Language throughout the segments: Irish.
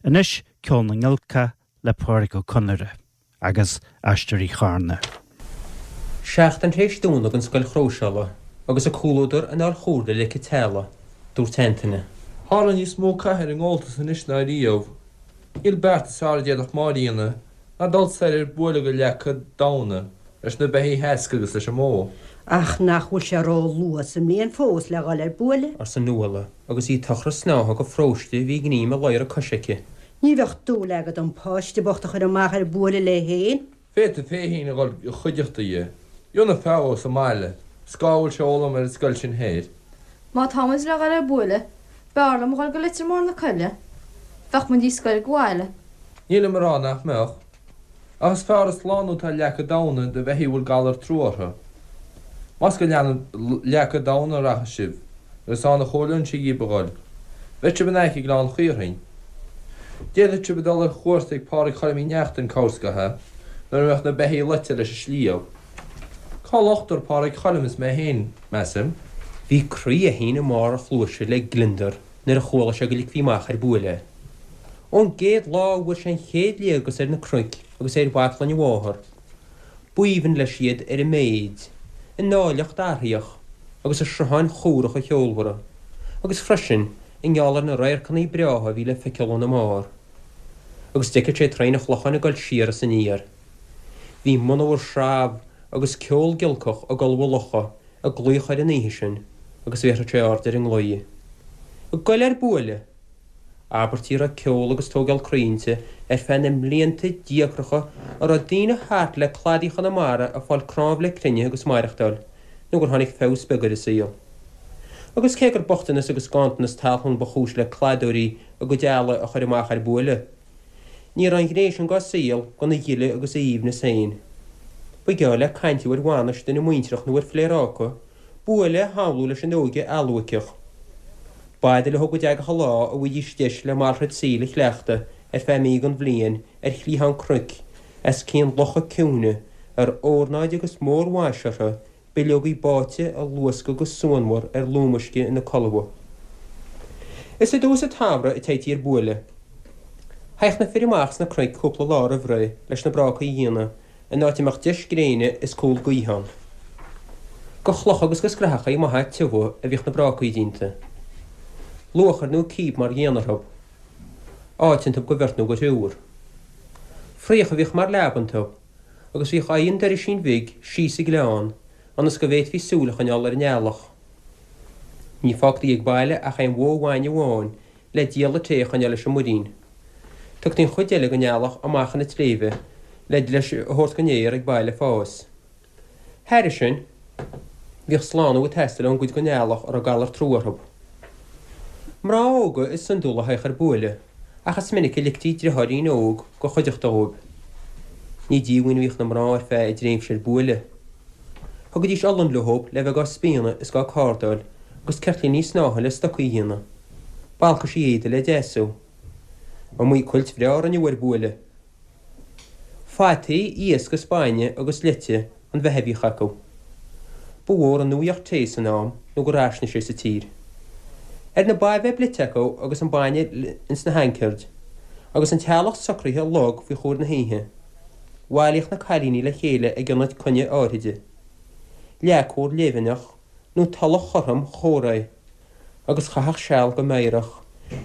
Anois, Ceol na nGiolcach le Pádraic Ó Conaire agus Aisteoirí Charna. Seachtain tar éis dúnadh an scoil chróiseála agus a comhluadar in fháil chomhairle leic an teallaigh, dúirt Antaine. Tharla níos mó catha ar an ngabháltas anois ná riamh. Níl beart is fearr a d'fhéadfadh Máire a dhéanamh ná dul soir ar buaile go Leaca Damhna leis na beithígh theasctha agus leis an mbó. Ach nach bhfuil sé ró-luath sa mbliain fós le dhul ar buaile? arsa Nuala agus í ag tochras snátha go phróiste a bhí ag greim i ladhar a coise aici. Ní bheadh dúil agat an páiste bocht a chur amach ar buaile léi féin. Féadfaidh mé féin a dhul i chuideachta dhi. Dheonaidh feabhas sa mbaile, 's cá bhfuil sé a fhoghlaim ar an scoil sin thoir. Má tá muid le dhul ar buaile, b'fhearr liom a dhul go Leitir Mór na Coille. Bheadh muid níos gaire go bhaile. Nílim a rá nach mbeadh. Ach is fearr an slánú atá i Leaca Damhna do bheithígh a bhfuil galar trua orthu. Más go Leaca Damhna a rachas sibh, agus ann a chomhairleoinnse dhíbh a dhul, beidh sibh in aice Gleann Chaorthainn. D'fhéadfadh sibh a dhul ar chuairt ag Pádraig Choilm Uí Neachtain corrscatha, nuair a bheadh na beithígh loite leis an sliabh. Cá locht ar Phádraig Choilm is mé féin, measaim. Bhí croí Fheichín i mbarr a chluaise le gliondar nuair a chuala sé go ligfí amach ar buaile é. Ón gcéad lá a bhfuair sé an chéad léargas ar na cnoic agus ar bhaclainn a mháthar, b'aoibhinn leis iad ar a méid, a n-áilleacht athraíoch agus a srutháin chumhracha cheolmhara, agus freisin i ngeall ar na radharcanna breátha a bhí le feiceáil óna mbarr. Agus d'fheiceadh sé Traein an Chlocháin ag dul siar is aniar. Bhí monabhar sreabh agus ceol giolcach ag dul ó locha ag glaoch air an oíche sin agus bhéarfadh sé aird ar an nglao. Ag goil ar buaile! Abairtí a raibh ceol agus tógáil croí inti ar feadh na mblianta díocracha a raibh daoine thart le cladaí Chonamara ag fáil cnámh le cruinneadh agus maireachtáil nó gur tháinig feabhas beag ar an saol. Agus cé gur bochtanas agus ganntanas talún ba chúis le cladóirí a gcuid eallaigh a chur amach ar buaile, ní raibh an ghné sin dá saol gan a ghile agus a aoibhneas féin. Ba gheall le caint ar bhainis duine muintreach nó ar phléaráca buaile a shamhlú leis an óige alluaiceach. B'fhada leo go dtagadh an lá a bhfaighidís deis le malrait saoil a chleachtadh ar feadh mí den bhliain ar chliathán cnoic os cionn locha ciúine a raibh ornáid agus mórmhaise orthu bileogaí báite a luascadh go suanmhar ar lúmuisce ina colbha. Is i dtús an tsamhraidh a téití ar buaile. Théadh na fir amach sna cnoic cúpla lá roimh ré leis na brácaí a dhéanamh in áit a mbeadh deis gréine is cúl gaoithe ann. Go chlocha agus go scrathachaí maithe tiubha a bhíodh na brácaí déanta. Luachair nó cíb mar dhíon orthu. Áit iontu go bheirt nó go thriúr. Fraoch a bhíodh mar leaba iontu agus bhíodh aghaidh an doirisín bhig síos sa ghleann ionas go bhféadfaí súil a choinneáil ar an eallach. Ní fágtaí ag baile ach aon bhó bhainne amháin le dialla tae a choinneáil leis an muirín. Tugtaí an chuid eile den eallach amach chun na sléibhe le leis a thabhairt don fhéar ag baile fás. Thairis sin, bhíodh slánú ag teastáil ón gcuid den eallach a raibh galar trua orthu. Mná óga is iondúla a théadh ar buaile, ach is minic a ligtí driotháirín óg go chuideachta dhóibh. Ní díomhaoin a bhíodh na mná ar feadh a dtréimhse ar buaile. Thugaidís olann leob le bheith dhá spíonadh is dhá cardáil agus ceirtlíní snátha le stocaí a dhéanamh. Balcaisí éadaigh le deasú. Iomaí cuilt bhreá a rinneadh ar buaile. Fataí, iasc is bainne agus leite an bheatha a bhíodh acu. Ba mhór an nuaíocht tae san am nó gur fhairsine sé sa tír. Ar na ba bheith blite acu agus an bainne ins na hancaird, agus an teallach socraithe lag faoi chomhair na hoíche, bhailíodh na cailíní le chéile ag ionad coinne áithride. Leac mhór léibheannach nó tulach chothrom chomhréidh. agus chaitheadh seal go meidhreach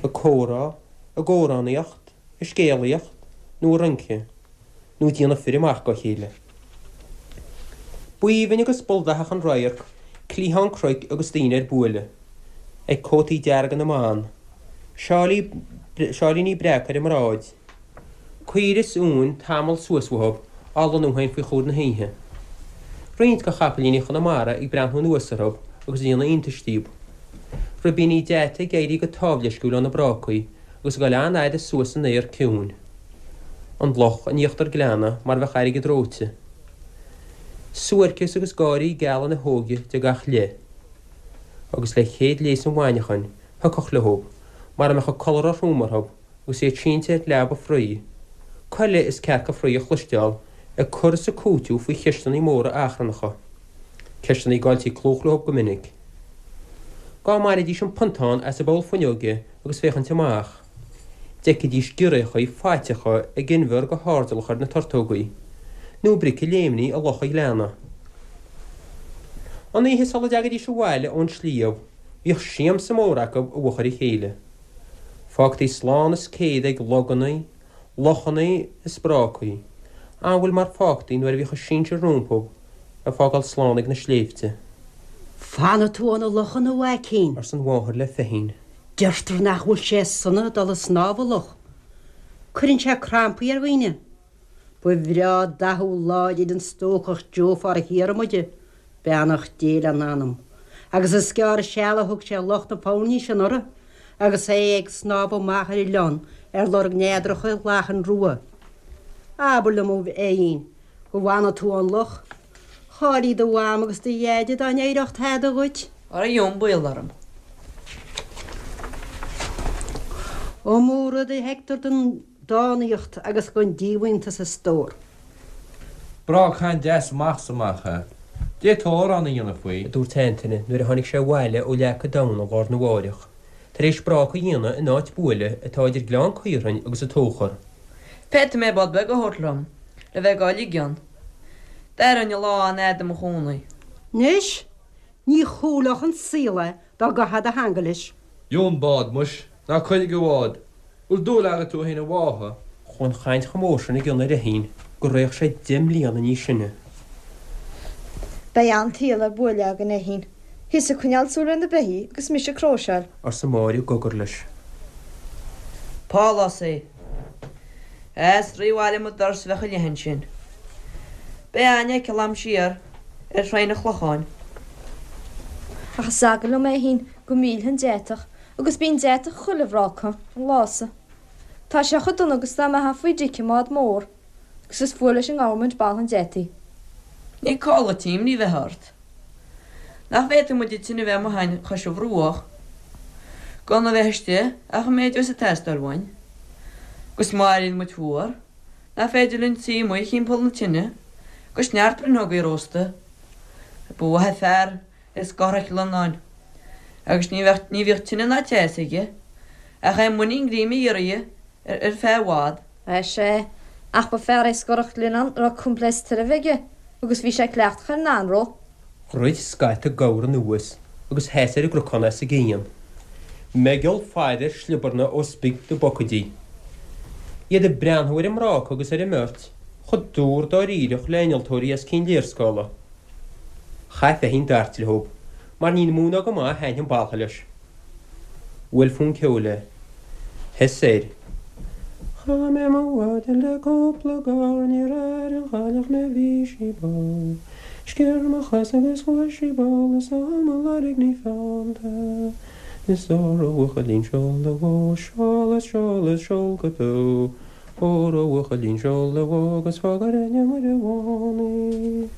ag comhrá, ag amhránaíocht, ag scéalaíocht nó ag rince, nó ag déanamh fir amach dá chéile. B'aoibhinn agus b'ildathach an radharc cliathán cnoic agus daoine ar buaile, ag cótaí dearga na mban, seáilí, seáilíní breaca ar a mbráid, Caoire is uain tamall suas uathu á lonnú féin faoi chomhair na hoíche. Roinnt de chapaillíní Chonamara ag breathnú anuas orthu agus ag déanamh iontais díobh. Ribíní deata ag éirí go támhleisciúil ó na brácaí agus ag dul an-fhada suas san aer ciúin. An loch in íochtar gleanna mar a bheadh airgead reoite. Suairceas agus gáirí geala na hóige de gach leith. Agus le chéad léas an mhaidhneachain, thiocfadh leo, mar a mbeadh an codladh róthrom orthu, agus iad sínte ar leaba fraoigh, coiligh is cearca fraoigh a chloisteáil ag cur is ag cúiteamh faoi cheisteanna móra achrannacha, ceisteanna a gcailltí clúch leo go minic. Dhá mbainfidís an pontán as an bpoll fuinneoige agus féachaint amach. D'fheicfidís giorriachaí faiteacha ag inbhear go hairdeallach ar na tortógaí, nó bric ag léimní i loch an ghleanna. An oíche sula dtagaidís abhaile ón sliabh, bhíodh siamsa mór acu i bhfochair a chéile. Fágtaí slán is céad ag logannaí, lochannaí is brácaí, amhail mar fágtaí nuair a bhíodh a sinsir rompu ag fágáil slán ag na sléibhte. Fanfaidh tú ó na lochanna, a mhaicín. arsa an mháthair le Feichín. Deirtear nach bhfuil sé sona dul ag snámh i loch. Cuireann sé crampaí ar dhaoine. Ba bhreá dathú láidir an stócach Joe Pháraic Dhiarmuide, beannacht Dé lena anam, agus is gearr seal a thug sé Loch na Foirní sin anuraidh agus é ag snámh amach ar an oileán ar lorg neadracha lachan rua. Abair liom, a Fheichín, go bhfanfaidh tú ón loch. Chá'ilí do mham agus do dheaide dá n-éireodh tada dhuit. Ara gheobhainn baol orm. Iomaí rud a fheictear den dánaíocht agus den díomhaointeas a stór. Breá caint deas amach 's amach é. D'fhéadfá amhrán a dhéanamh faoi. a dúirt Antaine nuair a tháinig sé abhaile ó Leac an Domhnaigh lá arna mháireach, tar éis bráca a dhéanamh in áit buaile atá idir Gleann Caorthainn agus an Tóchar. Féadfaidh mé bád beag a thabhairt liom le bheith dhá ligean. D'aireoinn an lá an-fhada i mo chónaí. Anois, ní chúlódh an saol é dá gcaithfeá do theanga leis. Gheobhainn bád, muis, ná cuir ag an bhád. Bhfuil dúil agat thú fhéin i bhfáithe? Chuaigh an chaint chomh mór sin i gcion ar Fheichín gur fhéach sé 10 mbliana níos sine. Beidh an-tsaol ar buaile againn, a Fheichín. Thusa ag coinneáil súil ar na beithígh agus mise ag cróiseáil. arsa Máire i gcogar leis. Pálás é. Is rith abhaile mo doras a bheadh a leith ansin. Beidh aithne aici a'm siar ar Thraigh an Chlocháin. Ach is eagal liom, a Fheichín, go millfinn an deatach, agus bíonn deatach chuile bhráca, an lá so. Tá sé chomh dona agus dá mbeifeá faoi dtic i mbád mór, agus is fuath leis an nGovernment boladh an deataigh. Ní call duit imní bheith ort. Nach bhféadfaidh muid an tine bheith amuigh a'inn chois an bhruach, gan a bheith istigh ach an méid a bheas ag teastáil uainn. Agus má éiríonn muid fuar, nach féidir linn suí amuigh thimpeall na tine, agus neart bruitheogaí a róstadh. Ba mhaith an fear é Scothraic Lionnáin, agus ní bheadh, ní bhíodh tine ná teas aige, ach é muinín greim a iarraidh ar feadh i bhfad. Sea, ach ba fear é Scorach Ghlionnán a raibh coimpléasc tairbhe aige agus bhí sé cleachtach ar an anró. Dhruid scata gabhar anuas agus sheas ar an gcnocán as an gcian. Meigeall faire sliobarna ó spig na bpocaidí. Iad ag breathnú ar an mbráca agus ar an mbeirt, chomh dúr dáiríreach le innealtóirí os cionn léarscála. Chaith Feichín dart leob, mar ní mó ná go maith a thaitnigh an baltha leis. Bhuail fonn ceoil é. Sheas air. Chaith mé mo mhaidin le cúpla gabhar níor airigh an chailleach mé bhí sí ball. Sciorr mo chos agus chuaigh sí ball is á mo lorg ní feannta. Is óró a bhuachaillín seol do bhó seol is seol is seol go beo. Óró a bhuachaillín seol do bhó agus fág ar aithne Muire Bhán í.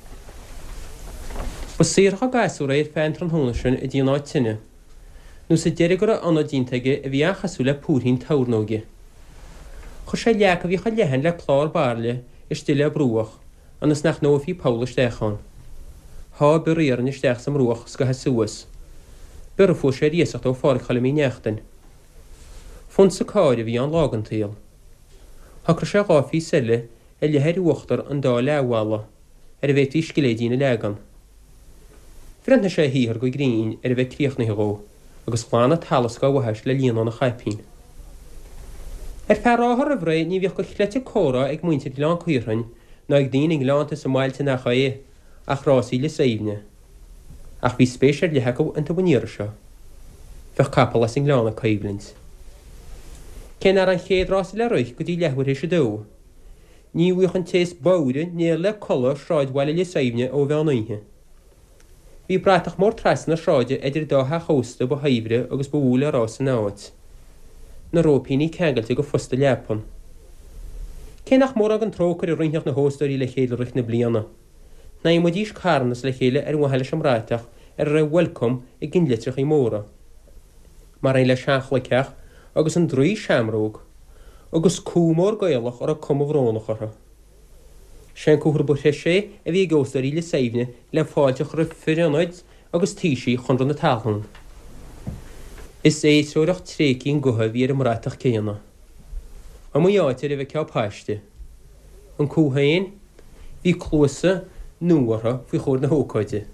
Ba saothrach an gasúr é ar feadh an tráthnóna sin i dtí an áit tine. Nó sa deireadh go raibh ionad déanta aige a bhí an-chosúil le púirthín tornóige. Chuir sé leac a bhí chomh leathan le clár bairille istigh le bruach ionas nach ndófaí poll isteach ann. Sháigh bior iarainn isteach sa mbruach scaitheamh suas, bior a fuair sé ar iasacht ó Pháraic Choilm Uí Neachtain. Fonsa cairr a bhí ann lá den tsaol. Shocraigh sé 2 phíosa eile a leathadh ar uachtar an dá leathbhalla ar a bhféadfaí scilléidín a leagan. Bhreathnaigh sé a shaothar go grinn ar a bheith críochnaithe dhó agus ghlan an t-allas dá bhaithis le líonán a chaipín. Ar feadh ráithe roimh ré ní bhíodh de chleite comhrá ag muintir Ghleann Caorthainn ná ag daoine i ngleannta is i mbailte nach é ach rásaí Lios Aoibhne. Ach bhí spéis ar leith acu iontu an iarraidh seo. Bheadh capall as an nGleann ag coimhlint. Cé nach raibh an chéad rása le rith go dtí leathuair théis a dó, ní bhfaigheadh an té is bodhaire néal le codladh i sráidbhaile Lios Aoibhne ó mheán oíche. Bhí bratach mór trasna na sráide idir an dá theach ósta ba shaibhre agus ba mhó le rá san áit. Na róipíní ceangailte go fosta leapan. Cé nach mórán den trócaire a roinnfeadh na hóstóirí le chéile i rith na bliana, shnaidhmidís carnas le chéile ar mhaithe leis an mbratach ar a raibh 'Welcome' i gcinnlitreachaí móra, mar aon le seanchloigtheach agus an draoi seamróg, agus cú mór Gaelach a raibh cuma bhrónach orthu. Sé an comhartha ba threise a bhí ag óstóirí Lios Aoibhne le fáilte a chur roimh fir ionaid agus taoisigh Chonradh na Talún. Is éidreoireacht tréigthe an gutha a bhí ar an mbratach céanna. Iomaí áit ar a bhfeicfeá paiste. An cú féin, bhí cluasa nua orthu faoi chomhair na hócáide.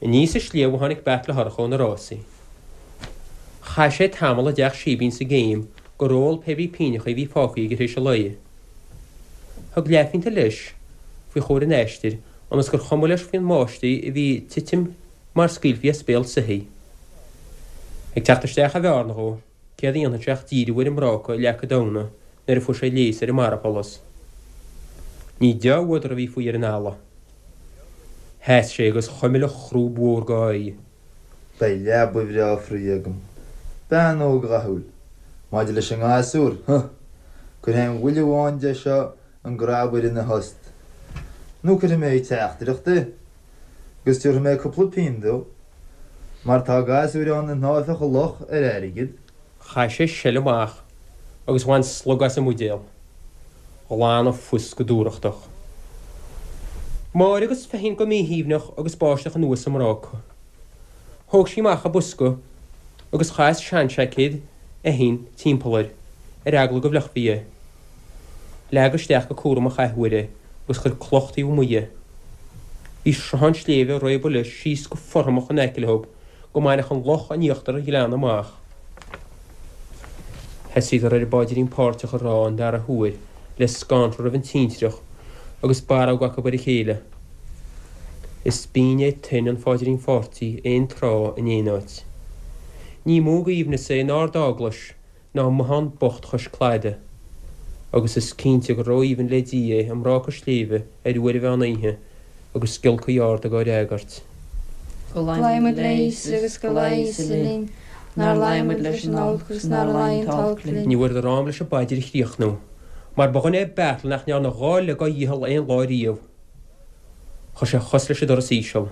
Aníos an sliabh a tháinig Beartla Shorcha ó na rásaí. Chaith sé tamall i dteach síbín sa gcéim gur ól pé brí pínneachaí a bhí fágtha aige tar éis an lae. Thug leathphionta leis faoi chomhair an aistir ionas gur chuma leis faoin mbáistigh a bhí ag titim mar scaoilfí as béal soithí. Ag teacht isteach an bhearna dhó, céard a dhéanfadh sé ach díriú ar an mbráca i Leac Damhna nuair a fuair sé léas ar an mbarrsholas. Ní deá-fhuadar a bhí faoi ar an eala. Sheas sé agus chuimil an chrúb mhór dá aghaidh. Beidh leaba bhreá fraoigh agam. Bean óg dhathúil. Maidir leis an ngasúr, huh! Cuirfidh aon bhuille amháin de seo an grabaire ina thost. Nó cuirfidh mé ag teachtaireacht é. Agus tabharfaidh mé cúpla pingin dó. Mar tá gasúir ann a shnámhfadh i loch ar airgead. Chaith sé seile amach agus bhain slog as an mbuidéal. Ghlan an phus go dúthrachtach. Máire agus Feichín go míshuaimhneach agus báisteach anuas sa mbráca. Thóg sí amach a bosca agus chaith seanseaicéad Fheichín timpeall air, ar eagla go bhfliuchfaí é. Leag isteach go cúramach athuair é agus chuir cloch taobh amuigh dhe. Bhí sruthán sléibhe ag réabadh leis síos go fothromach in aice leo go mbainfeadh an loch in íochtar an ghleanna amach. Thosaíodar ar an bPaidrín Páirteach a rá an dara huair le scanradh roimh an tintreach agus barróg acu ar a chéile. Is binn é tuin an Phaidrín Pháirtigh aon tráth in aon áit. Ní mó aoibhneas é in Ard-Eaglais ná i mbothán bocht chois cladaigh, agus is cinnte gur ró-aoibhinn le Dia é i mbráca sléibhe ar uair an mheán oíche agus giolcaí arda dhá fhreagairt. Go luí muid le Íosa agus go luí Íosa linn, nár luí muid leis an olc agus nár luí an t-olc linn. Ní bhfuaireadar am leis an bpaidir a chríochnú, mar ba dhuine é Beartla nach ndearna dha leith dá dhícheall aon lá riamh. Chuir sé a chos leis an doras íseal.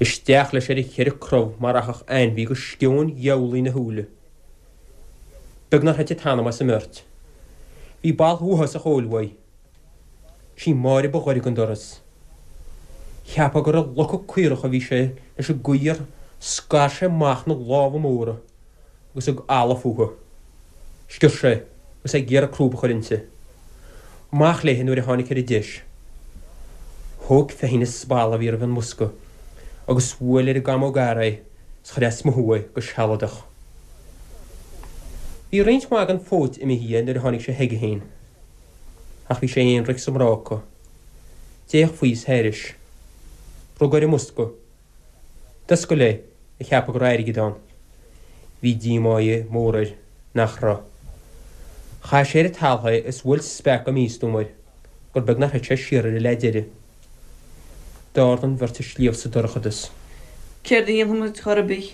Isteach leis ar a cheithre crobh mar rachadh ainmhí go sceoin gheamhlaigh ina shúile. Beag nár thit an t-anam as an mbeirt. Bhí boladh uafásach óil uaidh. Sí Máire ba ghaire don doras. Cheapfá gur ag locadh caorach a bhí sé leis an gcaoi ar scar sé amach na lámha móra agus ag alladh fúthu. Sciorr sé agus é ag iarraidh crúb a chur inti. Amach léi nuair a tháinig ar an deis. Thóg Feichín an spalla a bhí roimh an mbosca agus bhuail ar an gcamóg fhear é 's chuir as mothú é go sealadach. Bhí roinnt mhaith den phóit imithe dhe nuair a tháinig sé chuige féin. Ach bhí sé aonraic sa mbráca. D'fhéach faoi is thairis. Rug ar an mbosca. D'oscail é, ag ceapadh go raibh airgead ann. Bhí díomá mór air nach raibh. Chaith sé ar an talamh é is bhuail speach go místuama air gur beag nár thit sé siar air an leath deiridh. D'ard an bheirt an sliabh sa dorchadas. Céard a dhéanfaidh muid chor ar bith?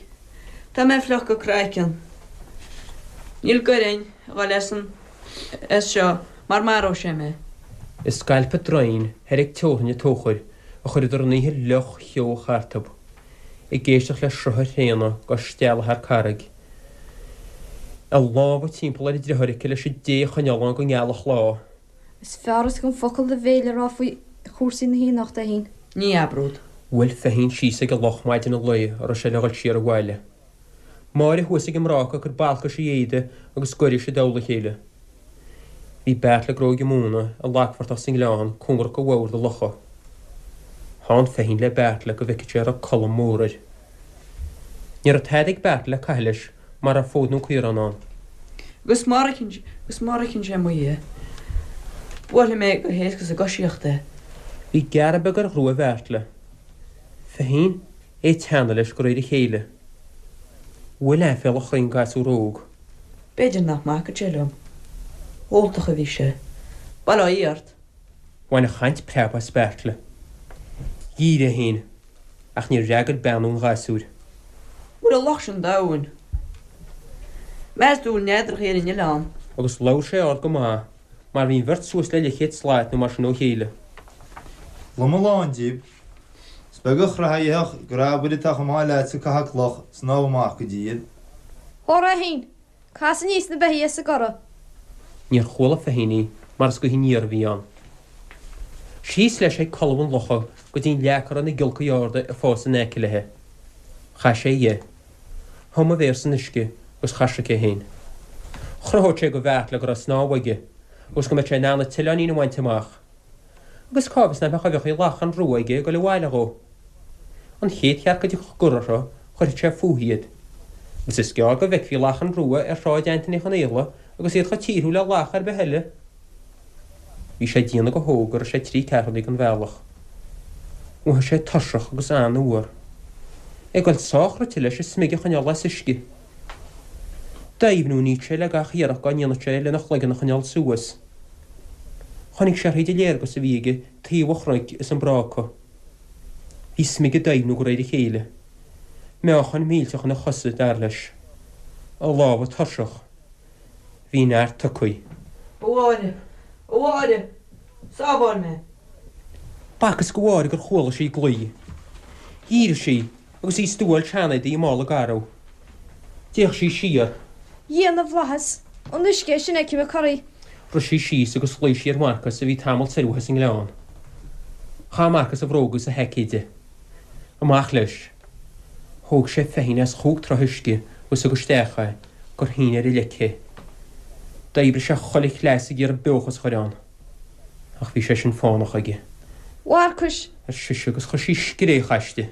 Tá mé fliuch go craiceann. Níl goir a'inn a dhul as an as seo mar maróidh sé mé. I scailp an draein thoir ag teorainn an Tóchair a chuireadar an oíche fhliuch cheoch thartub, ag éisteacht le sruth an thraona dhá stealladh thar carraig. A lámha timpeall ar a driotháir aici leis an dté a choinneáil ann go ngealfadh lá. Is fearr as gan focal do bhéil a rá faoi chúrsaí na haoineachta, a Fheichín. Ní abród. Bhuail Feichín síos ag an loch maidin an lae a raibh sé le dhul siar abhaile. Máire thuas ag an mbráca ag cur balcais a éadaigh agus goiris i dtoll a chéile. Bhí Beartla ag gróigeadh móna i lagphortach sa ngleann cóngarach do bhord an locha. Theann Feichín le Beartla go bhfeicfeadh sé an raibh colm mór air. Ní raibh tada ag Beartla le caitheamh leis mara raibh fód nó caorán ann. Agus má shroicheann sé amuigh é, buailfidh mé go héasca sa gcoisíocht é. Bhí gearradh beag ar ghrua Bheartla. Feichín, é ag teannadh leis de réir a chéile. Bhuail aiféala chroí an gasúr óg. B'fhéidir nach mbacfadh sé liom. Óltach a bhí sé. Bail ó Dhia ort. Bhain an chaint preab as Beartla. Dhírigh é féin, ach níor fhreagair beannú an ghasúir. Bhfuil an loch sin domhain? Meas tú bhfuil neadrachaí ar an oileán? Agus labhair sé ard go maith, mar bhí an bheirt suas le leathchéad slat nó mar sin ó chéile. Lom a lán díobh. Is beag an chreathadh a dhéanfadh grabaire atá chomh maith leatsa ag caitheamh cloch snámh amach go dtí iad. Hóra, a Fheichín! Cas aníos na beithígh as an gcorra. Níor chuala Feichín í mar is gaoth aniar a bhí ann. Síos leis ag colbha an locha go dtí an leac a raibh na giolcaí arda ag fás in aice léi. Chaith sé dhe. Thum a mhéar san uisce agus chaisric é féin. Chruthódh sé go Bheairtle go raibh snámh aige agus go mbeadh sé in ann an t-oileáinín a bhaint amach. Agus cá bhfios nach mbeadh uibheachaí lachan rua aige ag dul abhaile dhó. An chéad chearc a dtiocfadh gor orthu, chuirfeadh sé fúithi iad. Agus is gearr go bhfeicfí lachain rua ar Shráid Antaine Uí Chonaola agus iad chomh tíortha le lach ar bith eile. Bhí sé ag déanamh go hóg go raibh sé trí ceathrúnaí den bhealach. Mhothaigh sé tuirseach agus an-fhuar. É ag dul sách rite leis a smig a choinneáil as uisce. D'fheidhmniúnaíodh sé le gach iarracht dá ndéanfadh sé lena chloigeann a choinneáil suas. Chonaic sé thríd an léargas a bhí aige taobh an chnoic is an bráca. Bhí smig ag doimhniú de réir a chéile. Meáchan millteach ina chosa, dar leis. A lámha tuirseach. Bhí neart tugtha. A Mháire! A Mháire! Sábháil mé! B'fhacthas go Mháire gur chuala sí glao. Dhírigh sí agus í ag stuáil seanéadaí i mála garbh. D'fhéach sí siar. Dhia na bhFlaitheas! An uisce é sin fheicim ag corraí. Rith sí síos agus ghlaoigh sí ar Mharcas a bhí tamall soir uaithi sa ngleann. Chaith Marcas a bhróga agus a sheaicéid de. Amach leis. Thóg sé feichín as chúig troigh uisce agus thug isteach é gur shín ar a leic é. D'oibrigh sé chuile chleas ag iarraidh beochas a chur ann. Ach bhí sé sin fánach aige. Mharcais! ar sise agus chuir sí scréach aisti.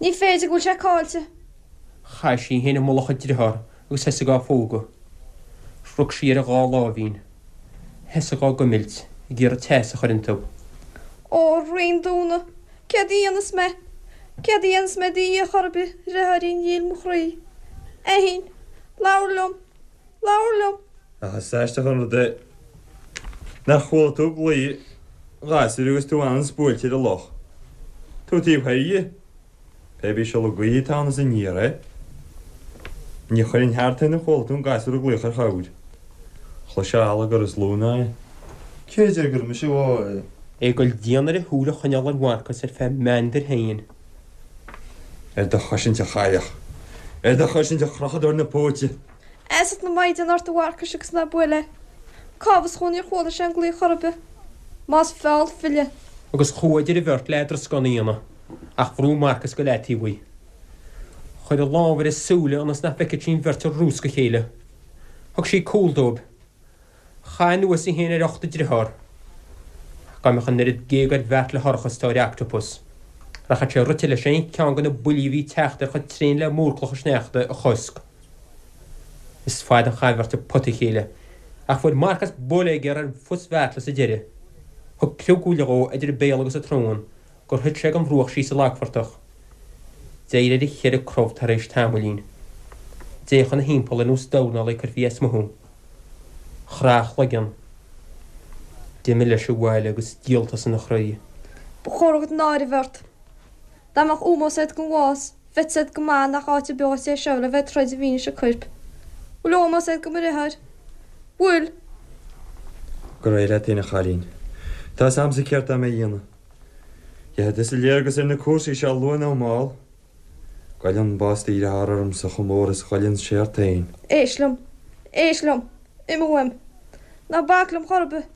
Ní féidir go bhfuil sé caillte. Chaith sí í féin i mullach a driothár agus thosaigh á phógadh. Rug sí ar a dhá láimhín. Thosaigh á gcuimilt, ag iarraidh teas a chur iontu. Ó, a Rí an Domhnaigh, céard a dhéanfas mé? Céard a dhéanfas mé do Dhia chor ar bith, a dhriotháirín dhil mo chroí? A Fhinn, labhair liom! Labhair liom! Ach is aisteach an rud é nár chuala tú glao an ghasúir agus tú anonn is buailte ar an loch. Tú taobh thoir dhe. Pé bí siolladh gaoithe atá ann is aniar é. Ní chuirfinn thart é nár chuala tú an gasúr ag glaoch ar chabhair. Chloisfeá allagar is lú ná é. Cé a deir gur mise a bháigh é? É ag goil dian air a shúil a choinneáil ar Mharcas ar feadh meandair féin. Ar do chosaint, a chailleach! Ar do chosaint, a chrochadóir na póite! Fheasacht na Maighdean ort a Mharcais agus ná buail é. Cá bhfios dhó níor chuala sé an glaoch chor ar bith. Más feall file. Agus chuaigh idir an bheirt le eadrascán a dhéanamh, ach bhrúigh Marcas go leataobh í. Chuir a lámh ar a súile ionas nach bhfeicfeadh sí an bheirt ag rúscadh a chéile. Thug sí cúl dóibh. Chaith anuas í féin ar ucht a driothár. Ach dá mbeadh an oiread géag ar Bheairtle Shorcha is atá ar Octopus, rachadh sé rite leis aon cheann de na buillí a bhí ag teacht air chomh tréan le múrchloch an tsneachta a chosc. Is fada an chaint an bheirt ag potadh a chéile, ach fuair Marcas buille géar ar phus Bheairtle sa deireadh. Thug criogbhuille dhó idir a béal agus a tsrón gur thuit sé den bhruach síos sa lagphortach. D'éirigh ar a cheithre crobh tar éis tamaillín. D'fhéach ina thimpeall ar nós dornálaí a cuirfí as mothú. Chraith a chloigeann. D'imigh leis abhaile agus díoltas ina chroí. Ba chóir agat náire a bheith ort. Dá mbeadh ómós agat don bhás, bheadh 'fhios agat go maith nach áit an áit é seo le bheith ag troid i bhfianaise coirp. Bhfuil ómós agat do mo dheartháir? Bhfuil? Go réidh leat fhéin, a chailín. Tá 'fhios a'msa céard tá mé a dhéanamh. Gheobhaidh tusa léargas ar na cúrsaí seo luath nó mall. Goilleann bás do dhearthár ormsa chomh mór is goilleann sé ort fhéin. Éist liom. Éist liom. Imigh uaim. Ná bac liom chor ar bith.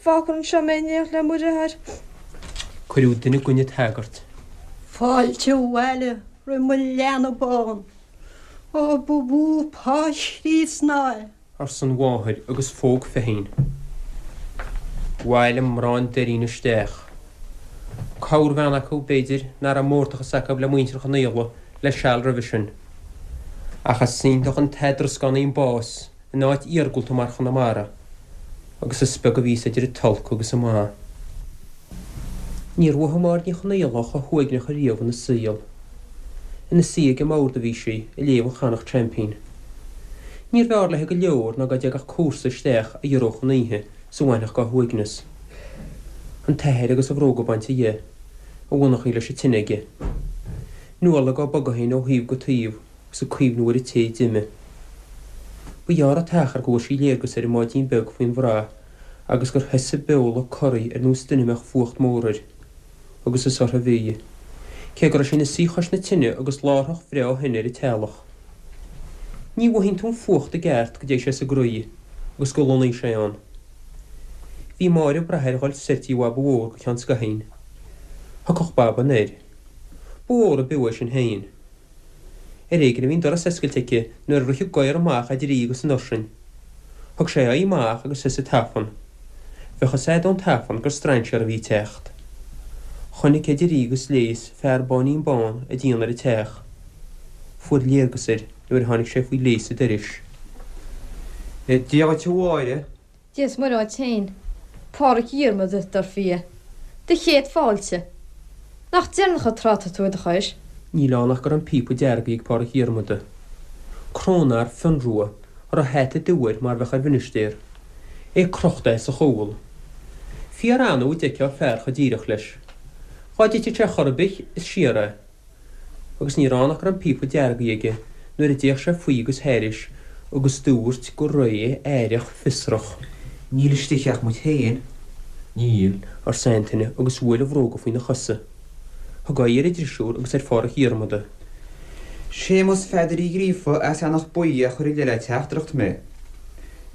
Fágfar anseo mé in éineacht le mo dheartháir. Cuireadh duine i gcoinne an tsagairt. Fáilte abhaile roimh mo leanbh bán. Ó, ba mhó pá Chríost ná é. arsa an mháthair agus phóg Feichín. Bhailigh mná an Doirín isteach. Corrbhean acu, b'fhéidir, nach raibh mórtachas acu le muintir Chonaola le seal roimhe sin. Ach is iontach an t-eadrascánaí an bás in áit iargúlta mar Chonamara, agus is beag a bhíos idir an t-olc agus an maith. Níor mhothaigh Máire Ní Chonaola chomh huaigneach ariamh ina saol. Ina suí ag an mbord a bhí sí, ag léamh an Chonnacht Champion. Níorbh fhearr léi go leor ná dá dtagadh comharsa isteach a ghiorródh an oíche is a bhainfeadh dá huaigneas. An t-athair agus a bhróga bainte dhe, a mhonarchaí leis an tine aige. Nuala á bogadh féin ó thaobh go taobh agus ag cuimhniú ar an té a d'imigh. Ba ghearr an t-achar go bhfuair sí léargas ar an mbáidín beag faoin bhrath agus gur thosaigh a beol ag corraí ar nós duine a mbeadh fuacht mór air. Agus is uirthi a bhí. Cé go raibh sí ina suí chois na tine agus láithreach bhreá thine ar an teallach. Ní mhothaíonn tú an fuacht i gceart go dté sé sa gcroí agus go lonnaíonn sé ann. Bhí Máire ag brath air dhul soir tí Bhaba Mhór go ceann scaithín. Thiocfadh Baba anoir. Ba mhór ab fhiú é sin féin. Ar éigean a bhí an doras oscailte aici nuair a rith an gadhar amach idir í agus an ursain. Thug sé a aghaidh amach agus thosaigh tafann. Bheadh fhios a'd ón tafann gur strainséar a bhí ag teacht. Chonaic idir í agus léas fear báinín bán ag déanamh ar an teach. Fuair léargas air nuair a tháinig sé faoi léas an dorais. Dia dhuit a Mháire. Dia is Muire dhuit féin, Páraic Dhiarmada, dar fia. Do chéad fáilte. Nach deireanach an tráth atá tú i do chois? Níl ann ach go raibh an píopa deargaithe ag Páraic Dhiarmada. Cróineár fionnrua, a raibh hata dubh air mar bheadh ar mhinistéir. É crochta as a chúl. Fíor annamh a d'fheicfeá fear chomh díreach leis. Dhá dtitfeadh sé chor ar bith, is siar é. Agus ní raibh ann ach go raibh an píopa deargaithe aige nuair a d'fhéach sé faoi agus thairis agus dúirt go réidh aireach fiosrach. Níl istigh ach muid féin. Níl, arsa Antaine agus bhuail a bhróga faoina chosa. Thug aghaidh ar an drisiúr agus ar Pháraic Dhiarmada. Séamus Pheadair Uí Ghríofa as Eanach Buí a chuir i leith le teachtaireacht mé.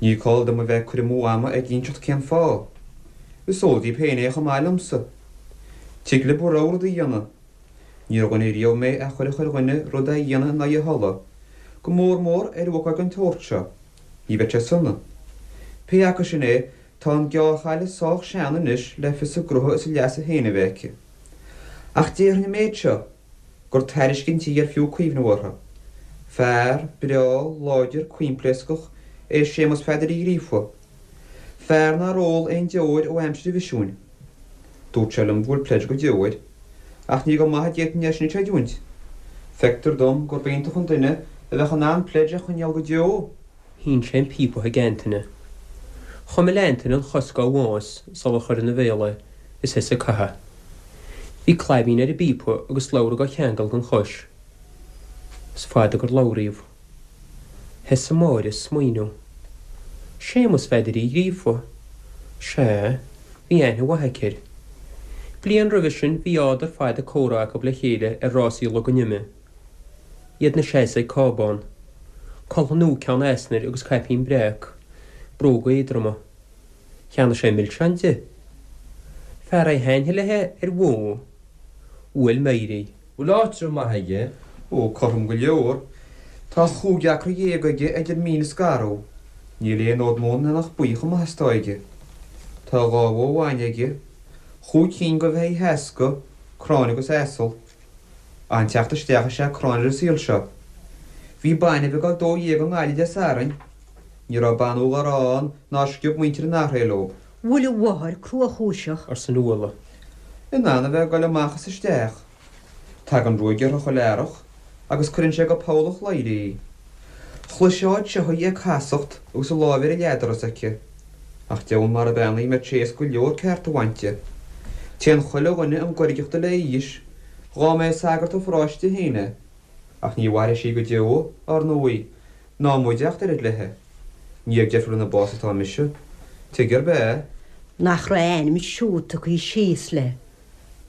Ní call dom a bheith ag cur amú ama ag inseacht cén fáth. Is eol daoib féin é chomh maith liomsa. Tig lib bhur rogha rud a dhéanamh. Níor dhuine riamh mé a chuirfeadh ar dhuine rud a dhéanamh in aghaidh a thola, go mór mór ar ócáid den tsórt seo. Ní bheadh sé sona. Pé acu sin é, tá an gearrchaile sách sean anois le fios a gnótha is a leasa féin a bheith aici. Ach déarfainn an méid seo, gur tairiscint í ar fiú cuimhneamh uirthi. Fear breá, láidir, coimpléascach é Séamus Pheadair Uí Ghríofa. Fear nár ól aon deoir ó aimsir an mhisiúin. Dúirt sé liom go bhfuil pledge go deo air. Ach ní go maith a d'fhéadfainn é sin a chreidiúint. Feictear dom gurb iontach an duine a bheadh in ann pledge a choinneáil go deo. Shín sé an píopa chuig Antaine. Chuimil Antaine an chos dá bhás sular chuir ina bhéal é is thosaigh ag caitheamh. Bhí claibín ar an bpíopa agus slabhra dhá cheangal den chois. Is fada gur labhraíodh. Thosaigh Máire ag smaoineamh. Séamus Pheadair Uí Ghríofa. Sea, bhí aithne mhaith aici air. Bliain roimhe sin bhí ádar fada comhrá acu le chéile ar rásaí Log an Ime. Iad 'na seasamh ag cábán. Coltha nua ceann easnair agus caipín breac, bróga éadroma. Cheannaigh sé milseáin di. Fear é thaitneodh léi ar bhó. Bhuail Máire í. Bhfuil áitreabh maith aige? Ó, cothrom go leor. Tá chúig acra dhéag aige idir mín is garbh. Níl aon fhód móna in Eanach Buí chomh maith is atá aige. Tá dhá bhó bhainne aige, chúig cinn de bheithígh sheasca, cráin agus asal. An-teacht isteach is ea cráin ar an saol seo. Bhí bainbh ag dul 12 i nGaillimh Dé Sathairn. Ní raibh banúil dá raibh ann nár sciob muintir an Achréidh leo. Bhfuil a mháthair cruachúiseach? arsa Nuala. In ann a bheith ag goil amach is isteach. Tagann ruaig uirthi chuile earrach agus cuireann sé go poll an chladhaire í. Chloisfeá anseo í ag casacht agus a láimh ar an leathdoras aici. Ach deamhan mar bean í a mbeadh sé éasca go leor ceart a bhaint di. Téann chuile dhuine an ghoirgeacht di le haois, dhá mb'é sagart an pharóiste féin é. Ach ní mhairfidh sí go deo, ár ndóigh, ná muide ach oiread léi. Ní ag deifir lena bás atá mise. Tuige arb ea? Nach raibh a ainm siúd tugtha síos léi.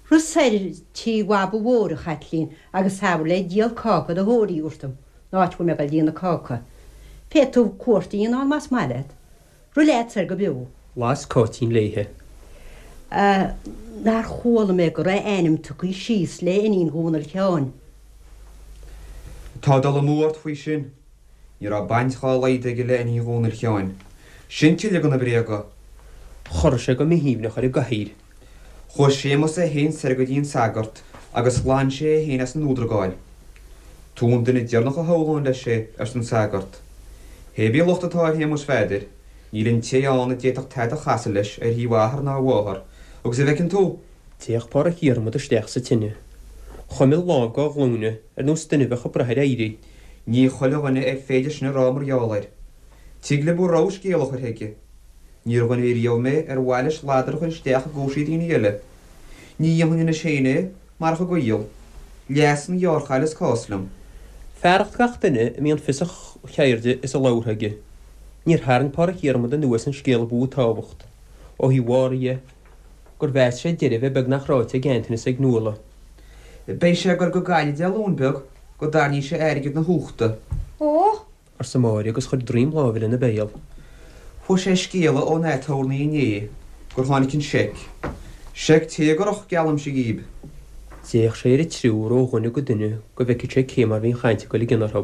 Rith soir tí Bhaba Mhóir, a Chaitlín, agus abair léi díol cáca do Thóirí a thabhairt dom, an áit a bhfuil mé ag dul déanamh cáca. Féadfaidh tú cuairt a dhéanamh ann más maith leat. Rith leat soir go beo. Las Cáitín léithe. A, nár chuala mé go raibh a ainm tugtha síos le iníon Dhónaill Sheáin. Tá dul amú ort faoi sin. Ní raibh baint dhá laghad aige le iníon Dhónaill Sheáin. Sin tuilleadh de na bréaga. Chorraigh sé go míthaoibhneach ar an gcathaoir. Chuaigh Séamus é féin soir go dtí an sagart agus ghlan sé é féin as an fhuadragáil. Tú an duine deireanach a shamhlóinn leis é, arsa an sagart. Hé bí locht atá ar Shéamus Pheadair, níl an té ann a d'fhéadfadh tada a chasadh leis ar thaobh a athar ná a mháthar, agus a bhfeiceann tú, D'fhéach Páraic Dhiarmada isteach sa tine. Chuimil lámh dá ghlúine, ar nós duine a bheadh ag brath ar éirí. Ní chuile dhuine ar féidir sin a rá mar gheall air. Tig le bhur rogha scéal a chur chuige. Níor dhuine riamh mé ar mhaith leis ladar a chur isteach i gcúrsaí daoine eile. Ní dhéanfainn anois féin é, marach an gaol. Leas an ghearrchaile is cás liom. Fearacht gach duine a mbíonn fios a cheirde is a labhartha aige, níor tharraing Páraic Dhiarmada anuas an scéal a ba mhó tábhacht, ó thaobh Mháire dhe, gur mheas sé deireadh a bheith beagnach ráite ag Antaine is ag Nuala. Beidh sé ag goil go Gaillimh Dé Luain beag go dtarrainí sé airgead na huachta. Ó! arsa Máire agus chuir droim láimhe lena béal. Fuair sé scéala ón aturnae inné gur tháinig an seic. Seic téagarach, geallaimse dhíb. D'fhéach sé ar an triúr ó dhuine go duine go bhfeicfeadh sé cé mar bhí an chaint ag dul i gcion orthu.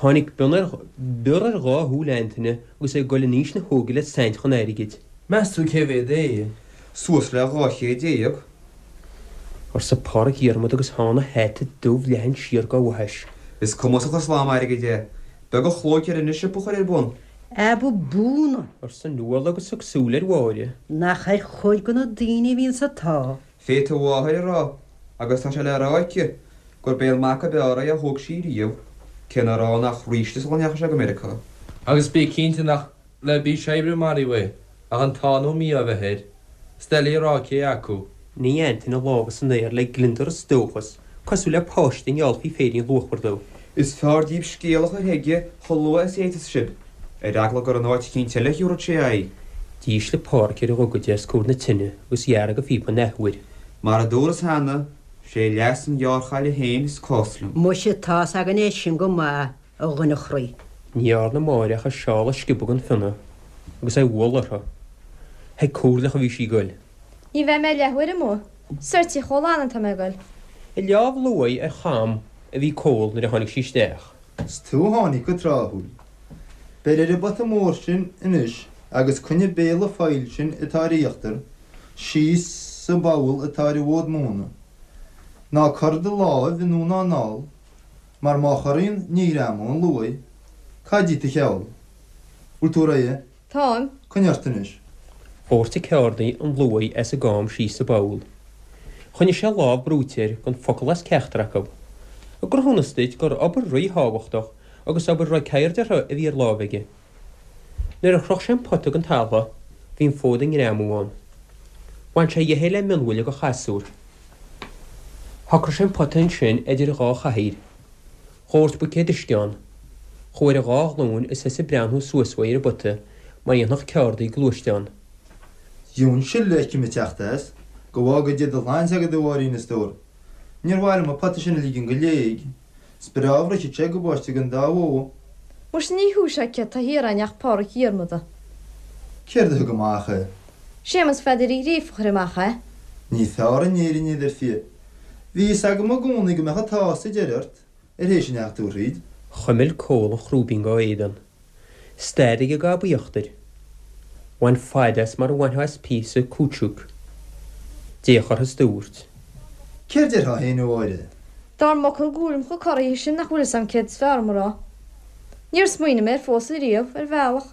Tháinig bior ar dhá shúil Antaine agus é ag dul in aois na hóige le saint chun airgid. Meas tú cé mhéad é? Suas le 200. Arsa Pádraic Dhiarmada agus thána hata dubh leathan siar dá bhaithis. Is cumasach an slám airgid é. Beag an chlóic air anois siopa a chur ar bun. Abú búna! arsa Nuala agus thug súil ar Mháire. Nach ar chuid de na daoine a bhíonns an t-ádh. Fé do mháthair a rá, agus tá sé le rá aici, gurb é an mac ab fhearr é a thóg sí riamh, cé nár fhan ach ríste sula ndeachaigh sé go Meiriceá. Agus bí cinnte nach le bís oibre a maraíodh é, ach an t-ádh nó mí-ádh a bheith air. Is doiligh a rá cé acu. Nigh Antaine a lámha san aer le gliondar is dóchas, cosúil le páiste a ngeallfaí féirín luachmhar dó. Is fearr díbh scéal a chur chuige chomh luath is a fhéadfas sibh, ar eagla gur in áit eicínt eile a thiúrfad sé aghaidh. D'ísligh Pádhraic ar a ghogaide os comhair na tine agus dhearg a phíopa an athuair. Mar a dúras cheana, 'sé leas an ghearrchaile féin is cás liom. Muise, tá's againn é sin go maith, a dhuine chroí. Ní dhearna Máire ach a seál a sciobadh den phionna agus é a bhualadh uirthi. Chuig comhairleach a bhí sí ag goil. Ní bheidh mé leathuair amuigh. Soir Tigh Chóil Anna atá mé ag goil. Ag leámh luaidhe ar cham a bhí Cól nuair a tháinig sí isteach. 'S tú a tháinig go tráthúil. Beir ar an bpota mór sin anois agus coinnigh béal an phoill sin atá ar íochtar síos sa bpoll atá ar an bhfód móna. Ná cur do láimh anonn ná anall, mar má chorraíonn ní ghreamóidh an luaith. Cad díot do cheol? Bhfuil tú réidh? Táim. Coinnigh ort anois. Dhóirt an ceárdaí an luaith as an gcam síos sa bpoll. Choinnigh sé a lámh brúite air gan focal as ceachtar acu. I gcruthúnas duit gur obair ríthábhachtach agus obair a raibh ceird uirthi a bhí ar láimh aige. Nuair a shroich sé an pota den talamh bhí an fód ag greamú ann. Bhain sé dhe é le mionbhuille de chasúr. Shocraigh sé an pota ansin idir dhá chathaoir. Dhóirt buicéad uisce ann. Chuaigh ar a dhá ghlúin is thosaigh ag breathnú suas uaidh ar an bpota mar a dhéanfadh ceárdaí gluaisteán. Gheobhainn sil a fheicim ag teacht as. Go bhfága Dia do shláinte agat, a Mháirín, a stór. Níor mhaith liom an pota sin a ligean go léig. Is breá a bhrisfeadh sé gabáiste don dá bhó. Muise ní thú sé céard tá thiar againn ach Pádraic Dhiarmada. Céard a thug amach é? Séamus Pheadair Uí Ghríofa a chuir amach é. Ní fearr in Éirinn iad, ar fia. Bhí fhios agam i gcónaí go mbeadh an t-ádh sa deireadh ort, ar théis a ndeachaigh tú thríd. Chuimil Cól an chrúibín dá éadan. Stad ag an ggob íochtair. Bhain faid as mar a bhainfeá as píosa cúitsúic. D'fhéach uirthi is dúirt. Céard déarfá féin, a Mháire? Dár m'fhocal go bhfuilim chomh corraithe sin nach bhfuil fhios a'm céard is fearr dom a rá. Níor smaoinigh mé air fós ariamh, ar bhealach.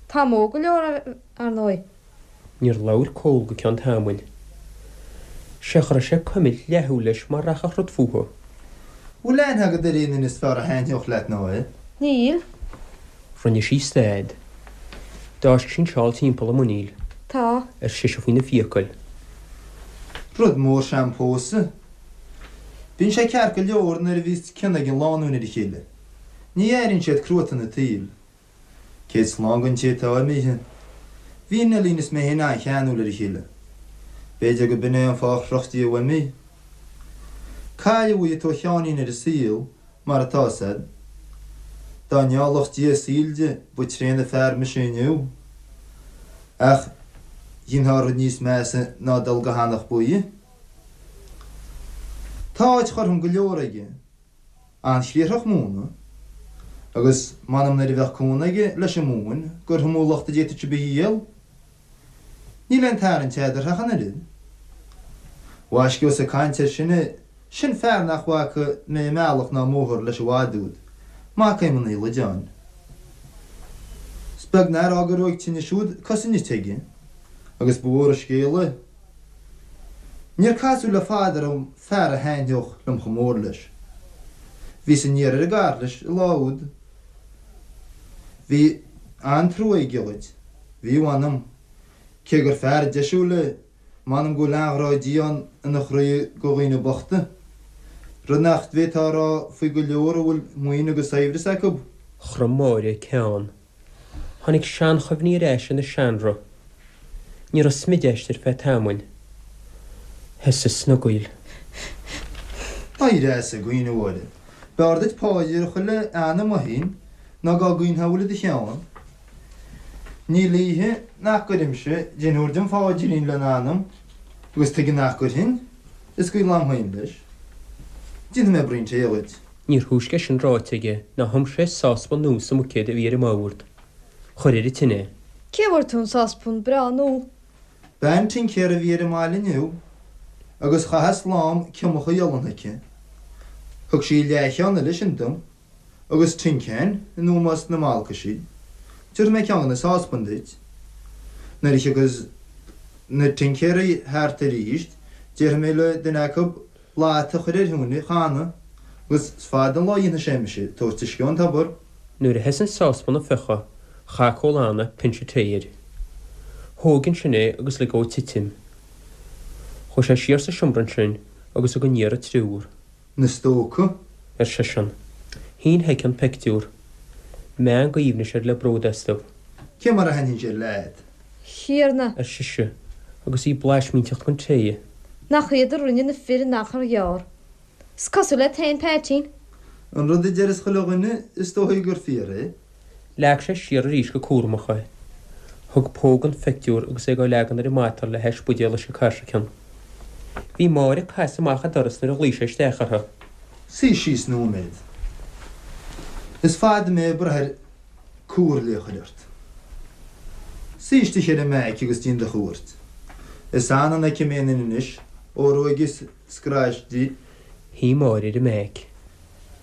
Táim óg go leor, ar ndóigh. Níor labhair Cól go ceann tamaill. Sé chur sé ag cuimilt leathshúil leis mar rachadh rud fúthu. Bhfuil aithne agat ar aon duine is fearr a thaitneodh leat ná é? Níl. Rinne sí stad. D'fháisc sí an seál timpeall a muiníl. Tá. ar sise faoina fiacail. Rud mór is ea an pósadh. Bíonn sé ceart go leor nuair a bhíos cion ag an lánúin ar a chéile. Ní airíonn siad cruatan an tsaoil. Céad slán don té atá imithe. Bhí Neilín is mé féin an-cheanúil ar a chéile. B'fhéidir go b'in é an fáth ar chroch Dia uaim í. Cailleadh í atá Sheáinín ar an saol, mar atá 'fhios a'd. Dá ngeallfadh Dia a saol di, ba tréan fear mise inniu. Ach dhéanfá rud níos measa ná dul go hEanach Buí. Tá áit chothrom go leor aige. An-chriathrach móna, agus m'anam nuair a bheadh cónaí aige leis an móin gur iomú lucht a d'fhéadfadh sibh a dhíol. Níl aon tarraingt eadarthu ach an oiread. Mhaisce ós ag caint air sin é, sin fear nach bhfaca mé i mbealach ná i mbóthar leis i bhfad úd, mac Éamoinn Uí Loideáin. Is beag nár fhág a raibh ag tine siúd cosa nite aige, agus ba mhór an scéal é. Níor casadh le fada orm fear a thaitneodh liom chomh mór leis. Bhíos aniar ar an gcarr leis an lá úd. Bhí an-trua aige dhuit, bhí mh'anam. Cé gur fear deisiúil é, m'anam go bhfuil an-ghrá Dé ann ina chroí go dhaoine bochta. Rud nach bhféadfá a rá faoi go leor a bhfuil maoin agus saibhreas acu. Chrom Máire a ceann. Tháinig seanchuimhní ar ais ina seanroth. Ní raibh smid aisti ar feadh tamaill. Thosaigh snogaíl. Éirigh as ag caoineadh, a Mháire. B'fhearr duit paidir a chur le anam féin ná dhá gcaoinfeá a bhfuil i do cheann. Níl oíche nach gcuirimse deichniúr den phaidrín lena anam, agus tuige nach gcuirfinn? Is gaol a'm féin leis. Déanfaidh mé braon tae dhuit. Níor thúisce sin ráite aige ná thum sé sáspan nua sa mbuicéad a bhí ar an mbord. Chuir ar an tine é. Cé bhfuair tú an sáspan breá nua? Bean tincéara a bhí ar an mbaile inniu agus chaitheas lám ciomacha olann chuici. Thug sí leathcheann eile sin dom agus tinceáin in ómós na mbalcaisí. Tabharfaidh mé ceann de na sáspain duit. Nuair a thiocfas na tincéaraí thart arís déarfaidh mé le duine acu lata a chur ar thine a chanadh agus is fada an lá a dhéanfaidh sé mise ag tabhairt uisce ón tobar. Nuair a sheas an sáspan ag fiuchadh, chaith Cóil Anna pinse tae air. Thóg ansin é agus lig dhó titim. Chuaigh sé siar sa seomra ansin agus thug aniar an triúr. Na stócaigh? ar seisean. Shín chuici an pictiúr. Meangadh aoibhnis air le bród astu. Cé mar a thaitníonn sé leat? Thiarna! ar sise, agus í blaismínteacht den tae. Nach iad a rinne na fir in achar ghearr. Is cosúil le t-aon Peaitín. An rud a deireas chuile dhuine, is dóichí gur fíor é. Leag sé siar arís go cúramach é. Thug póg don phictiúr agus é dhá leagan ar an matal le hais buidéal uisce cairsiceann. Bhí Máire ag casadh amach an doras nuair a ghlaoigh sé isteach uirthi. Suigh síos nóiméad. Is fada mé ag brath ar comhairle a chur ort. Suigh istigh ar an mbeairic agus déan do chuairt. Is annamh an fheicim aon duine anois ó ruaigeas scraith di. Shuigh Máire ar an mbeairic.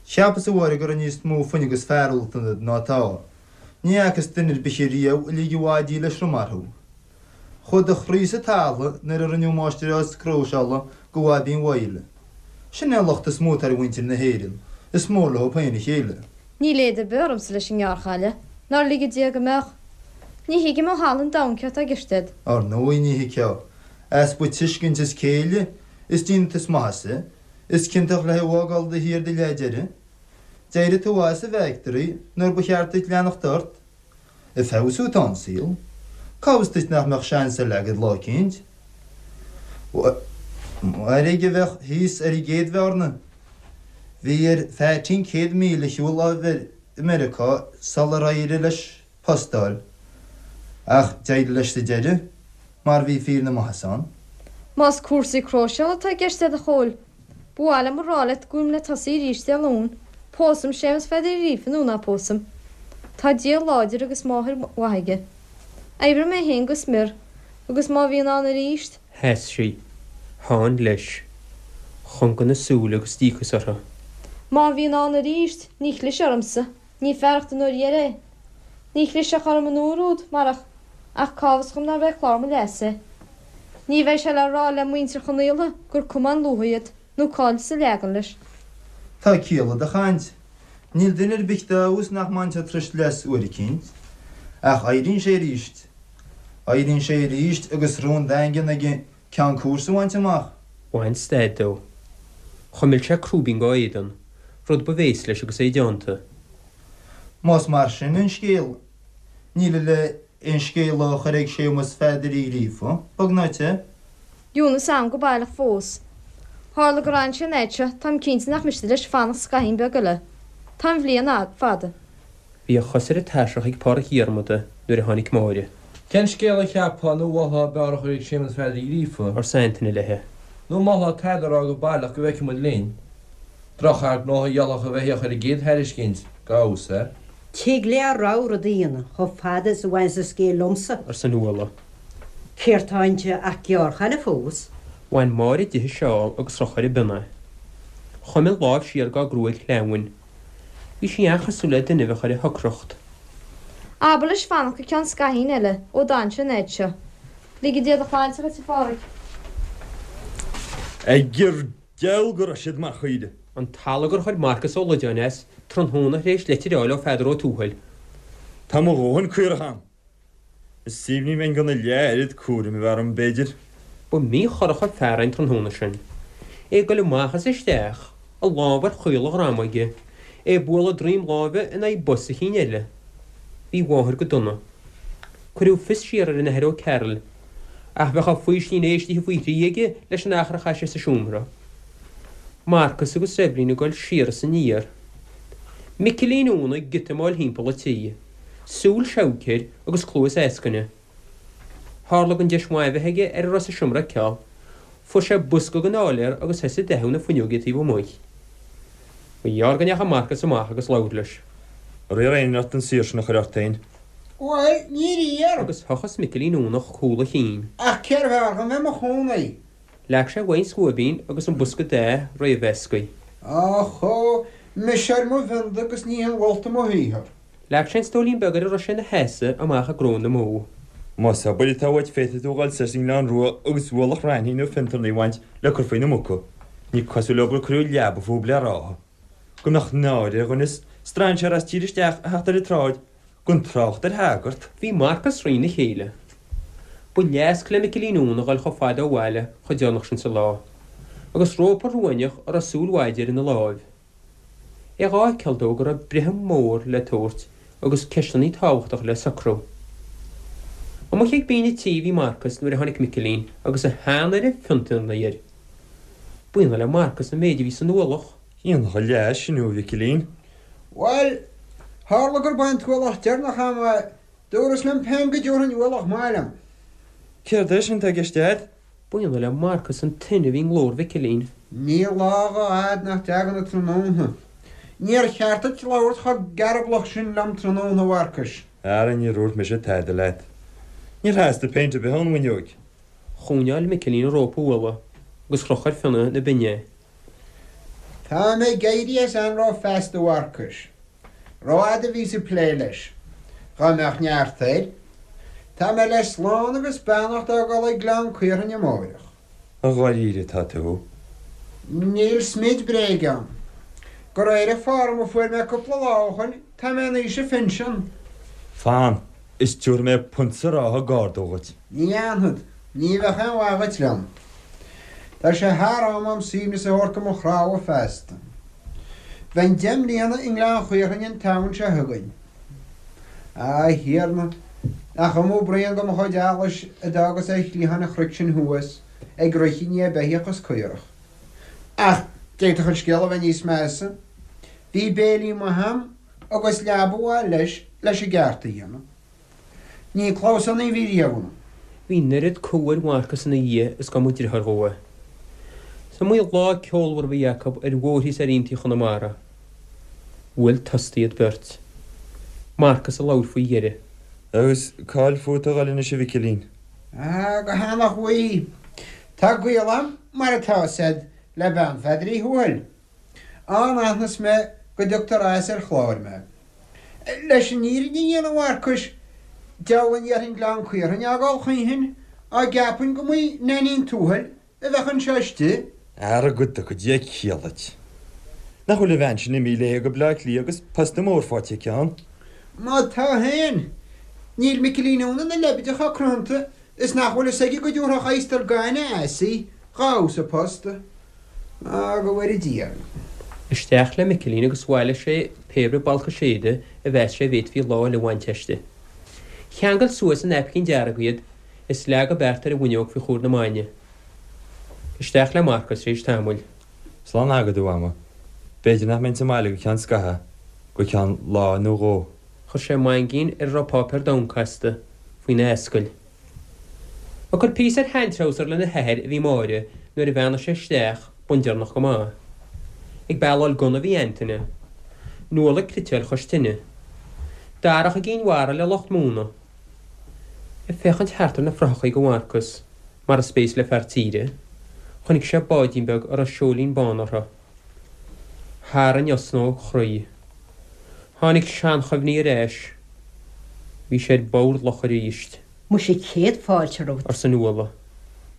Cheapas, a Mháire, go raibh níos mó fuinnimh agus fearúlacht ionat ná atá. Ní fhacas duine ar bith riamh a lig a mhaidí le sromar thú. Chuaigh do chroí sa talamh nuair a rinneadh máistreás cróiseála go Bhaibín Mhaidhle. Sin é an locht is mó atá ar mhuintir na hÉireann, is mór leo féin a chéile. Níl éad ar bith ormsa leis an ngearrchaile, nár lige Dia go mbeadh. Ní thuigim ó thalamh an domhain céard tá i gceist agat. Ar ndóigh ní thuigfeá. Easpa tuiscint is céille is dínit is maitheasa. Is ciontach le thú a fhágáil do thír do leath deiridh. D'éirigh tú as an bhfactory nuair ba cheart duit leanacht ort. Ag feabhsú atá an saol. Cá bhfios duit nach mbeadh seans eile agat lá eicínt? Mairg a bheadh thíos ar an gcéad bhearna. Bhí ar Pheaitín 100 míle a shiúl i Meiriceá sular éirigh leis post a fháil. Ach d'éirigh leis sa deireadh, mar bhí fíor na maitheasa ann. Más cúrsaí cróiseála atá i gceist agat a Chóil, ba mhaith liom a rá leat go bhfuilim le tosaí arís Dé Luain, pósfaidh Séamus Pheadair Uí Ghríofa nó ná pósfaidh. Tá Dia láidir agus máthair mhaith aige. Oibreoidh mé féin go smior, agus má bhíonn ann arís, Sheas sí. Sheán leis. Chonga na súile agus díocas orthu. Má bhíonn ann arís, ní chlisfidh ormsa. Ní fearacht an uair dheiridh é. Ní chlisfeadh orm an uair úd, marach, ach cá bhfios dhom nárbh é clár mo leasa é. Ní bheidh sé le rá le muintir Chonaola gur cuma an luaith iad, nó cá'il sa leagan leis. Tá ciall i do chaint. Níl duine ar bith dá fheabhas nach mbainfeadh turais leas uair eicínt. Ach éiríonn sé aríst. Éiríonn sé aríst agus rún daingean aige ceann cúrsa a bhaint amach. Bhain stad dó. Chuimil sé crúibín dá éadan, rud ba bhéas leis agus é déanta. Más mar sin an scéal, níl le aon scéala a chur ag Séamus Pheadair Uí Ghríofa, bog ná te. Ionnas am go baileach fós. Tharla gur fhan sé an fhaid seo, táim cinnte nach miste leis fanacht scaithín beag eile. Tá an bhliain fada. Bhí a chos ar an tairseach ag Pádraic Dhiarmada nuair a tháinig Máire. Cén scéal a cheapfá nó mholfá ab fhearr a chur ag Séamus Pheadair Uí Ghríofa? arsa Antaine léi. Nó mholfá tada a rá go baileach go bhfeicfidh muid linn? Drochfhear gnótha a gheallfadh a bheith ar an gcéad thairiscint, ga fheabhas air. Tig le a rogha rud a dhéanamh chomh fada is a bhaineas an scéal liomsa. arsa Nuala. Céard tá inti ach gearrchaile fós? Bhain Máire di a seál agus chroch ar a bionn é. Chuimil lámh siar dá gruaig shleamhain. Bhí sí an-chosúil le duine a bheadh ar a shocracht. Abair leis fanacht go ceann scaithín eile ó d'fhan sé an fhaid seo. Lige Dia do shláinte dhuit, a Phádraig. Gur geall go raibh siad mar chaoire. An t-allagar a chuir Marcas Ó Loideáin as, tráthnóna tar éis leitir a fháil ó Pheadar Ó Tuathail. Tá mo dhóthain caorach a'm. Is aoibhinn ní bheinn gan a leath-oiread cúraim a bheith orm, b'fhéidir. Ba mhíchorrach an fear é an tráthnóna sin. É ag goil amach is isteach, a lámh ar chaol a dhroma aige, é ag bualadh droim láimhe in aghaidh bos a chinn eile. Bhí a mháthair go dona. Cuireadh fios siar ar an Athair Ó Cearaill, ach bheadh a fhaoistin éistithe faoi thrí aige leis an achar a chaith sé sa seomra. Marcas agus Eibhlín ag goil siar is aniar. Micilín Úna ag giotamáil thimpeall an tí. Súil seabhaic air agus cluas eascaine. Tharla don deis mhaith a bheith aige ar a raibh sa seomra a fheiceáil. Fuair sé bosca den áiléar agus thosaigh ag dathú na fuinneoige taobh amuigh. Ba ghearr go ndeachaigh Marcas amach agus labhair leis. Ar iarr éinne ort an saothar sin a chur ort féin? Bhuel, níor iarr. Agus thochas Micilín Únach cúl a chinn. Ach cérbh fhearr dhom bheith i mo chónaí? Leag sé uaidh an scuaibín agus an bosca datha réamh-mheasctha. Ach, mise ar mo bhionda agus ní hinmholta mo shaothar. Leag sé an stóilín beag ar a raibh sé ina sheasamh amach i gcró na mbó. Más obair atá uait féadfaidh tú a dhul soir sa nGleann Rua agus ualach raithní nó fiontarnaí a bhaint le cur faoi na muca. Ní cosúil leo gur cuireadh leaba fúb le ráithe. Go mbeadh náire ar dhuine strainséir as tír isteach a theacht ar an tsráid, gan trácht ar shagart. Bhí Marcas thrína chéile. Ba leasc le Micilín Úna a dhul chomh fada ó bhaile chomh deireanach sin sa lá, agus rópa ruainneach a raibh súil mhaide air ina láimh. É dhá fheiceáil dó go raibh breith mhór le tabhairt agus ceisteannaí tábhachtacha le socrú. Amuigh ag binn an tí a bhí Marcas nuair a tháinig Micilín agus a shean-oiread fiontarnaí air. B'ionadh le Marcas an méid a bhí san ualach. Iontach an leigheas sin thú, a Mhicilín. Bhuel, tharla gurb é an t-ualach deireanach a'm é, dúras liom féin go dtabharfainn ualach maith liom. Céard é sin atá i gceist a'd? B'ionadh le Marcas an tine a bhí i nglór Mhicilín. Níl lá dhá fhad nach dtagann an tráthnóna. Níor cheart duit labhairt chomh gearblach sin liom tráthnóna, a Mharcais. Ara níor dhúirt mise tada leat. Níor theastaigh péint ar bith ón bhfuinneoig. Choinneáil Micilín an rópa ualaigh agus chroch ar fionnadh na binne é. Tá mé ag éirí as anró feasta, a Mharcais. Rófhada a bhíos ag plé leis. Dhá mbeadh neart air. Tá mé le slán agus beannacht a fhágáil ag Gleann Caorthainn amáireach. I dháiríre atá tú? Níl smid bréige ann. De réir an form a fuair mé cúpla lá ó shoin, tá mé in aois an phinsin. Fan, is tabharfaidh mé punt sa ráithe gar dó dhuit. Ní dhéanfad. Ní bheadh aon mhaith dhuit liom. Tá sé thar am a'm suaimhneas a thabhairt do mo chnámha feasta. Bheinn deich mbliana i nGleann Chaorthainn an tSamhain seo chugainn. A Thiarna, nach iomaí braon de mo chuid allais a d'fhágas ar chliathán an chnoic sin thuas, ag rith i ndiaidh beithíoch is caorach. Ach d'fhéadfadh an scéal a bheith níos measa. Bhí béilí maith a'm agus leaba mhaith leis, leis an gceart a dhéanamh. Ní clamhsánaí a bhí riamh ionam. Bhí an oiread cumha ar Mharcas ina dhiaidh is dá mba driotháir dhó é. Is iomaí lá ceolmhar a bhí acu ar bhóithrí is ar aontaí Chonamara. Bhuail tost iad beirt. Marcas a labhair faoi dheireadh. Agus cá'il fút a dhul anois a Mhicilín? Ah, go hEanach Mhaí. Tá gaol a'm, mar atá 'fhios a'd, le bean Pheadair Uí Thuathail. Ann aithneos mé go dtugtar as ar chlár mé. Leis an fhírinne a dhéanamh, a Mharcais, deabhal a ndéarfainn Gleann Caorthainn a fhágáil choíchin, dá gceapfainn go mb'í Nainín Tuathail a bheadh anseo istigh. Ara go dtuga Dia ciall duit. Nach bhfuil an bhean sin imithe léi go Bleá Cliath agus posta mór faighte aici ann? Má tá féin, níl Micilín Úna ina leibide chomh cruthanta is nach bhfuil fhios aige go dtabharfadh adhastar gainne as í dhá fheabhas a post. Á, go bhfóire Dia orainn. Isteach le Micilín agus bhailigh sé pé ar bith balcais éide a mheas sé a bhféadfaí lá eile a bhaint aisti. Cheangail suas i naipcín dearg iad is leag an beart ar an bhfuinneog faoi chomhair na maidne. Isteach le Marcas tar éis tamaill. Slán agad, a Mhama. B'fhéidir nach mbeinn sa mbaile go ceann scaithimh, go ceann lá nó dhó. Chuir sé maingín ar a raibh páipéar donn casta faoina ascaill. Ag cur píosa ar sheantreabhsar lena hathair a bhí Máire nuair a bheannaigh sé isteach bundeireanach go maith. Ag bealáil gunna a bhí Antaine. Nuala ag cniotáil chois tine. Darach i gCinn Mhara le lucht móna. Ag féachaint thart ar na frothachaí do Mharcas, mar is béas le fear tíre, chonaic sé báidín beag a raibh seoilín bán orthu. Tharraing osna ó chroí. Tháinig seanchuimhní ar ais. Bhí sé ar bord locha arís. Muise céad fáilte romhat. arsa Nuala.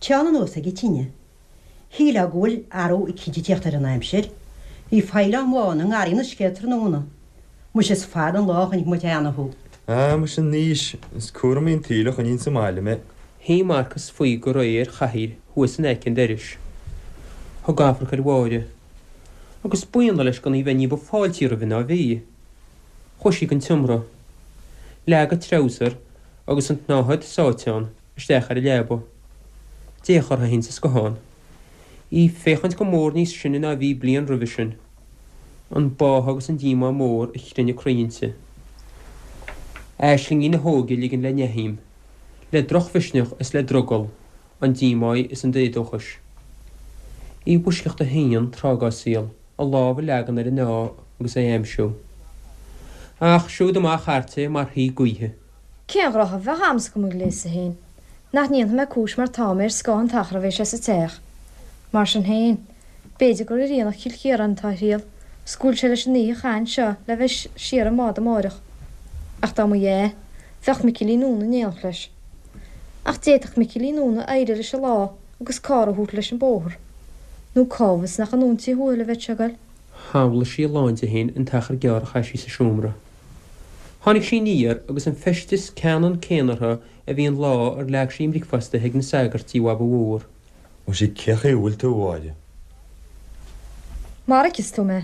Téann anuas ag an tine. Shílfeá go bhfuil athrú eicínt ag tíocht ar an aimsir. Bhí faoileáin bhána i ngarraí an uisce tráthnóna. Muise is fada an lá a chonaic muid cheana thú. Ah, muise anois, is cúramaí an tsaoil a choinníonn sa mbaile mé. Shuigh Marcas faoi go réidh ar chathaoir thuas in aice an dorais. Thug amharc ar Mháire. Agus b'ionadh leis gan í bheith ní ba fáiltí roimhe ná a bhí. Chuaigh sí gon tseomra. Leag a treabhsar agus an tsnáthaid sáite ann isteach ar an leaba. D'fhéach uirthi féin sa scothán. Í ag féachaint go mór níos sine ná a bhí bliain roimhe sin. An báthadh agus an díomá mór a chrinne a croí inti. Aislingí na hóige ag ligean le neathaidhm. Le drochmhisneach is le drogall an díomá is an éadóchais. Í i bhfoisceacht a haon tráth dá saol a lámh a leagan ar an ádh agus é a aimsiú. Ach siúd amach thart é mar shuí gaoithe. Cén ghnoithe a bheadh a'msa go mo ghléasadh féin? Nach ndéanfaidh mé cúis mar tá mé ar scáth an t-achar a bheidh sé sa teach. Mar sin féin, b'fhéidir gur ar aonach Chill Chiaráin atá a thriall, 's go bhfuil sé leis an oíche a chaitheamh anseo le bheith siar i mbád amáireach. Ach dá mba ea, bheadh Micilín Úna in éineacht leis. Ach d'fhéadfadh Micilín Úna éirí leis an lá agus carr a thabhairt leis an bóthar. Nó cá bhfios nach anonn Tigh Thuathail a bheadh sé ag goil. Shamhlaigh sí a lán di féin an t-achar gearr a chaith sí sa seomra. Tháinig sí aniar agus an feisteas ceannann céanna uirthi a bhí an lá ar leag sí a mbricfeasta ag na sagairt tí Bhaba Mhór. Mhuise cé chaoi a bhfuil tú, a Mháire? Mar a fheiceas tú mé.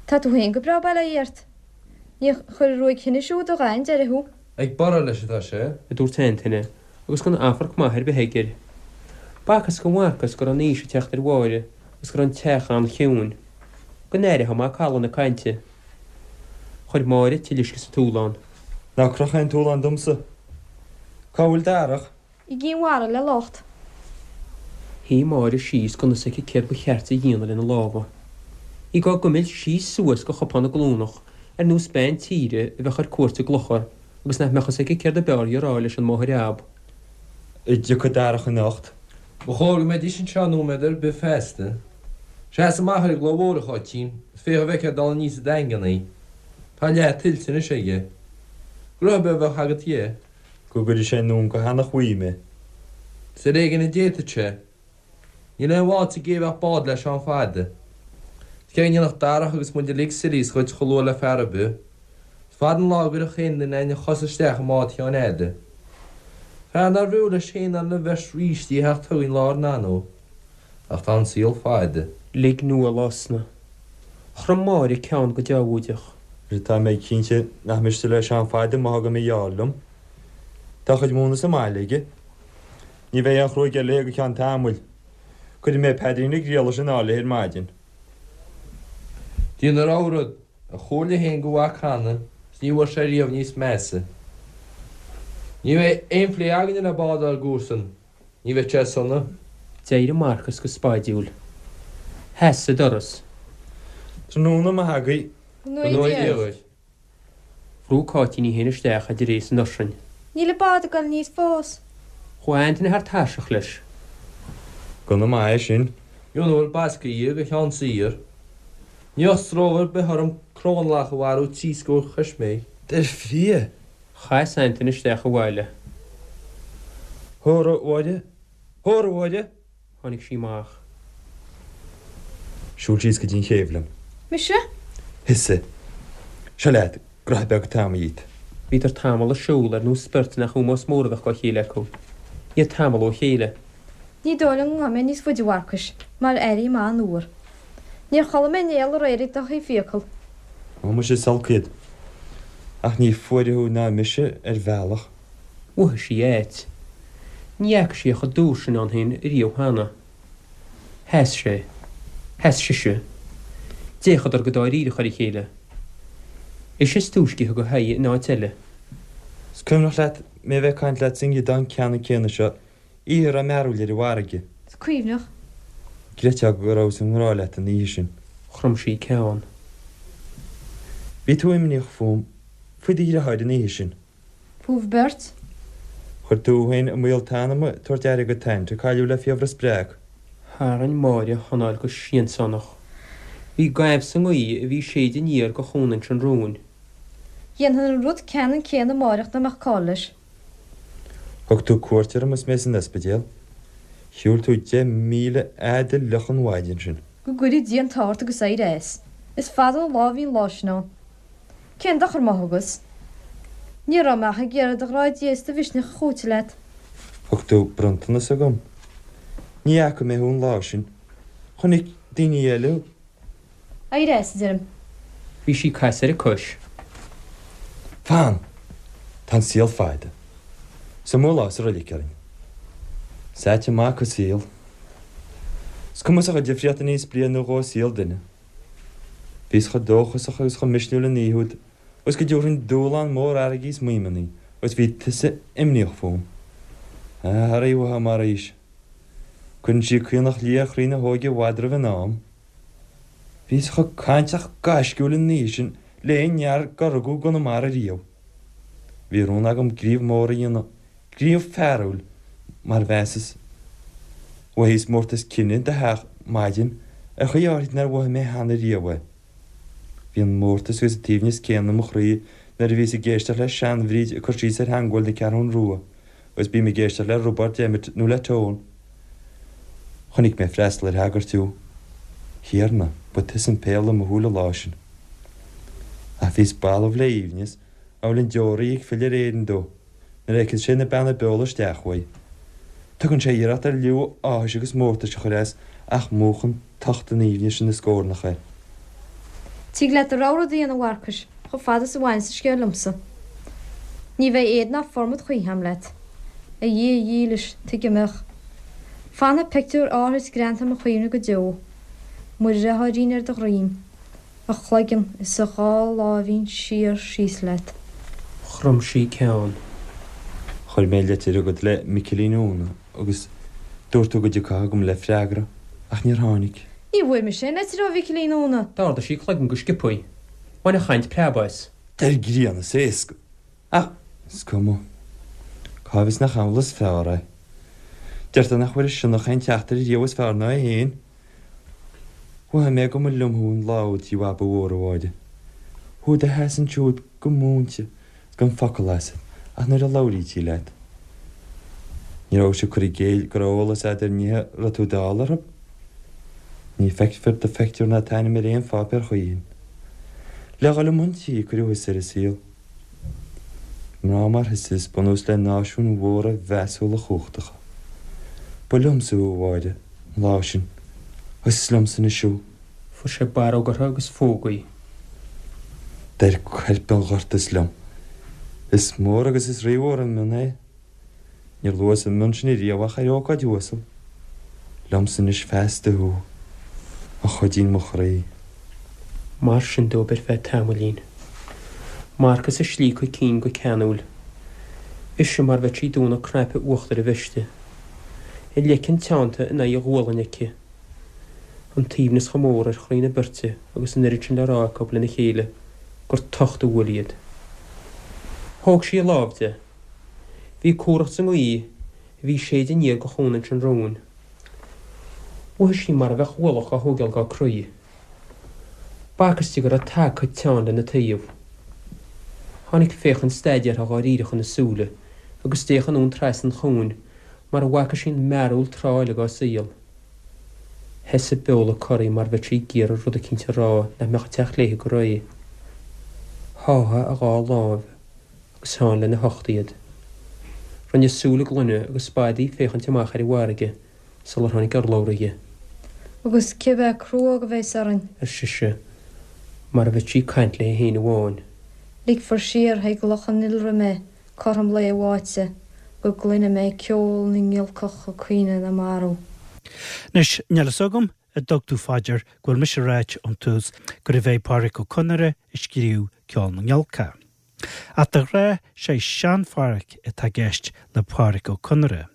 Tá tú féin go breá bail ó Dhia ort. Níor chuir an ruaig thinnis úd a dhath an deireadh thú. Ag borradh leis atá sé. a dúirt Antaine, agus gan amharc maith ar bith aige air. B'fhacthas do Mharcas go raibh an aois ag teacht ar Mháire agus go raibh an teach an-chiúin. Go n-aireofá macalla na cainte. Chuir Máire tuilleadh uisce sa túlán. Ná croch aon túlán domsa. Cá bhfuil Darach? I gCinn Mhara le lucht. Shuigh Máire síos gan fhios aici céard ba cheart di a dhéanamh lena lámha. Í dhá gcuimilt síos suas go chupán na glúnach ar nós bean tíre a bheadh ar cuairt i gclochar agus nach mbeadh fhios aici céard ab fhearr di a rá leis an máthair ab. An dtiocfaidh Darach anocht. Ba chóir go mbeidís anseo nóiméad ar bith feasta. Seas amach ar an gclaí mhór, a Cháitín, is féach an bhfeicfeá ag dul aníos an Daingean é. Tá a leath tuillte anois aige. Gnoithe beag a bheadh agat dhe. Go gcuirfidh sé anonn go hEanach Mhaí mé. Is ar éigin a d'fhéadfadh sé. Níl aon bhád sa gcé a bheadh bád le Seán Fada. Is cé go ndéanfadh Darach agus muid uilig sillies dhuit chomh luath le fear ar bith. Is fada an lá a gcuirfeadh aon duine againn a chos isteach i mbád Sheáin Fhada. Fear nárbh fhiú leis féin ná lena bheirt rístí a theacht chugainn lá ár n-anó. Ach tá an saol fada. Lig Nuala osna. Chrom Máire ceann go deabhóideach. Tá mé cinnte nach miste le Seán Fada má thugaim a gheall liom. Tá a chuid móna sa mbaile aige. Ní bheidh aon chruaidh eile léi go ceann tamaill. Cuirfidh mé paidrín na Griallais in airde léi ar maidin. Déan a rogha rud, a chomhairle féin do mhac cheana is ní bhfuair sé riamh níos measa. Ní bheidh aon phlé againne le bád ár gcomharsan, ní bheidh sé sona. D'éirigh Marcas go spaidiúil. Sheas sa doras. Tráthnóna maith agaibh. Go ngnóthaí Dia dhuit. Bhrúigh Cáitín í féin isteach idir é is an ursain. Níl an bád ag dul aníos fós. Chuaigh Antaine thar tairseach leis. Gunna maith é sin. Muna bhfuil basctha dhe go Sheán saor. Ní bheadh stró ar bith orm crónlach a mharú tri scór choisméig. Dar fia! Chas Antaine isteach abhaile. Hóra, a Mháire! Hóra, a Mháire! Tháinig sí amach. Siúil síos go dtí an chéibh liom. Mise? Thusa. Seo leat, graithe beag atá agam dhíot. Bhíodar tamall ag siúl ar nós beirt nach ómós mór a bheadh dá chéile acu. Iad tamall ó chéile. Ní dóigh liom go ngabhfaidh mé níos faide, a Mharcais, mar airím an-fhuar. Níor chodlaigh mé néal aréir ag do thaobh fiacal. Ó, muise, is olc iad. Ach ní fuaire thú ná mise ar bhealach. Mhothaigh sí ait. Ní fhaca sí é chomh dúr sin ann féin riamh cheana. Sheas sé. Sheas sise. D'fhéachadar go dáiríreach ar a chéile. Ise is túisce a thug a haghaidh in áit eile. Is cuimhneach leat mé a bheith ag caint leat sa ngiodán ceannann céanna seo oíche a raibh mearbhall ar an bhfarraige? Is cuimhneach. Gcreidfeá go rabhas i ngrá leat an oíche sin. Chrom sí ceann. Bhí tú imníoch fúm, faoi do dhriotháir an oíche sin. Fúibh beirt. Chuir tú féin i mbaol t'anama ag tabhairt aire do t'aint a cailleadh le fiabhras breac. Tharraing Máire a hanáil go siansánach. Bhí gaimh sa ngaoth a bhí ag séideadh aniar de Chuan Inse an Rúin. Dhéanfainn an rud ceannann céanna amáireach dá mbeadh call leis. Thug tú cuairt orm is mé san ospidéal. Shiúil tú 10,000 fhad fhliuch an mhaidin sin. Go gcuire Dia an t-ádh ort agus éirigh as. Is fada an lá a bhí an lá sin ann. Cén dochar má thugas? Ní raibh mé ach ag iarraidh do ghrá Dé is do mhisneach a chúiteamh leat. Thug tú bronntanas chugam. Ní fhaca mé thú an lá sin. Chonaic daoine eile thú. Éirigh as, a deirim. Bhí sí ag casadh ar a cois. Fan! Tá an saol fada. Is iomaí lá sa roilig orainn. Is ait an mac an saol. Is cuma sa chuid difríocht a níos bliain nó dhó i saol duine. Bhíos chomh dóchasach agus chomh misniúil an oíche úd agus go dtabharfainn dúshlán mór fharraige is maidhmeanna agus bhí tusa imníoch fúm. Ah, arae uathu mar aois. Cuireann sí caonach liath ar chroí na hóige i bhfad roimh an am. Bhíos chomh cainteach gaisciúil an oíche sin le aon fhear dár rugadh i gConamara riamh. Bhí rún agam gníomh mór a dhéanamh, gníomh fearúil, mar mheasas. Mhothaíos mórtas cine i do theach maidin ar chaoi áithrid nár mhothaigh mé cheana riamh é. Bhí an mórtas agus an t-aoibhneas céanna i mo chroí nuair a bhíos ag éisteacht le sean-Bhríd ag cur síos ar theangmháil na Ceathrún Rua agus bím ag éisteacht le Roibeárd Emmet nó le Tone. Chonaic mé ag freastal ar shagart thú. Thiarna, ba tusa an péarla i mo shúil an lá sin. Ach bhíos balbh le aoibhneas, amhail an deoraí ag filleadh ar Éirinn dó, nuair a fheiceas sé na beanna beola isteach uaidh. Tugann sé iarracht ar liú áthais agus mórtais a chur as ach múchann tocht an aoibhnis ina scornach é. Tig leat do rogha rud a dhéanamh, a Mharcais, chomh fada is a bhaineas an scéal liomsa. Ní bheidh éad ná formad choíche a'm leat. A Dhia dhílis, tuige a mbeadh? Fanfaidh pictiúr áithrid greanta i mo chuimhne go deo. Mo dhriotháirín ar do dhroim. A chloigeann is a dhá láimhín siar síos leat. Chrom sí ceann. Chuir mé litir chugat le Micilín Úna agus dúirt tú go dtiocfá chugam le freagra, ach níor tháinig. Ní bhfuair mise aon litir ó Mhicilín Úna. D'ardaigh sí a cloigeann go sciobthaí. Bhain an chaint preab as. Deir grian is éasca. Ach is cuma. Cá bhfios nach amhlaidh is fearr é. Deirtear nach bhfuair an sionnach aon teachtaire riamh is fearr ná é féin. Mhothaigh mé go mba liom thú an lá úd Tigh Bhaba Mhór, a Mháire. Thú i do sheasamh ansiúd go múinte is gan focal asat ach nuair a labhraítí leat. Ní rabhais ag cur i gcéill go raibh eolas a'd ar nithe a raibh tú dall orthu. Ní feicfear do phictiúr ná t'ainm ar aon pháipéar choíchin. Le dhul i mbun tí a cuireadh thusa ar an saol. Mná mar thusa is bunús le náisiúin mhóra mheasúla chumhachtacha. Ba liomsa thú, a Mháire, an lá sin, agus is liomsa anois thú. Fuair sé barróg uirthi agus phóg í. D'oir coirp an ghorta is liom. Is mór agus is rímhór an mionn é. Níor luas an mionn sin ariamh ach ar ócáid uasal. Liomsa anois feasta thú, a chuidín mo chroí. Mar sin dóibh ar feadh tamaillín. Marcas ag slíocadh a cinn go ceanúil. Ise mar bheadh sí ag dúnadh cnaipe uachtair a veiste. A leiceann teannta in aghaidh a gualainne aici. An t-aoibhneas chomh mór ar chroí na beirte agus an oiread sin le rá acu lena chéile gur tocht a bhuail iad. Thóg sí a lámh de. Bhí cumhracht sa ngaoth a bhí ag séideadh aniar go Chuan Inse an Rúin. Mhothaigh sí mar a bheadh ualach á thógáil dá croí. B'fhacthas di go raibh tagtha teann lena taobh. Tháinig féachaint staidéartha dháiríreach ina súile agus d'fhéach anonn trasna an chuain mar a bhfaca sí an mearúil tráth eile dá saol. Sheas a beola corraithe mar bheadh sí ag iarraidh rud eicínt a rá nach mbeadh ag teacht léi go réidh. Sháigh a dhá láimh agus theann lena hucht iad. Rinne súil a gloine agus b'fhada í ag féachaint amach ar an bhfarraige sular tháinig urlabhra di. Agus cibé cruóg a bheas orainn. ar sise, mar a bheadh sí ag caint léi féin amháin. Ligfear siar chuig Loch an Iolra mé cothrom lae bháite go gcluine mé ceol na ngiolcach ag caoineadh na marbh. Anois, níl fhios agam a dtug tú fá dear go bhfuil mise ag ráit ón tús gurbh é Pádraic Ó Conaire a scríobh Ceol na nGiolcach. Ach de ghnáth sé sean-Phádhraic atá i gceist le Pádraic Ó Conaire.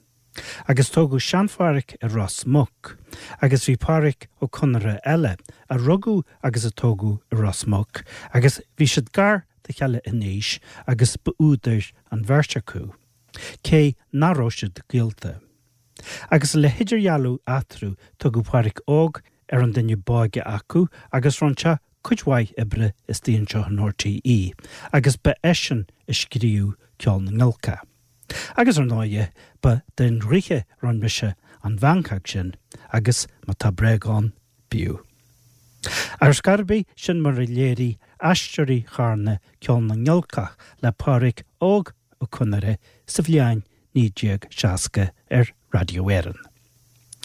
Agus tógadh sean-Phádhraic i Ros Muc, agus bhí Pádraic Ó Conaire eile, a rugadh agus a tógadh i Ros Muc, agus bhí siad gar dá chéile in aois agus ba údair an bheirt acu, cé nach raibh siad gaolta. Agus le hidirdhealú eatarthu tugadh Pádraic Óg ar an duine b'óige acu agus rinne sé cuid mhaith oibre istigh anseo in RTÉ agus ba eisean a scríobh Ceol na nGiolcach. Agus ar ndóighe, ba den dhraoithe a rinne mise an mheancóg sin agus má tá bréag ann, bíodh. Ar scor ar bith, sin mar a léirigh Aisteoirí Charna Ceol na nGiolcach le Pádraic Óg Ó Conaire sa bhliain 1960 ar Raidió Éireann.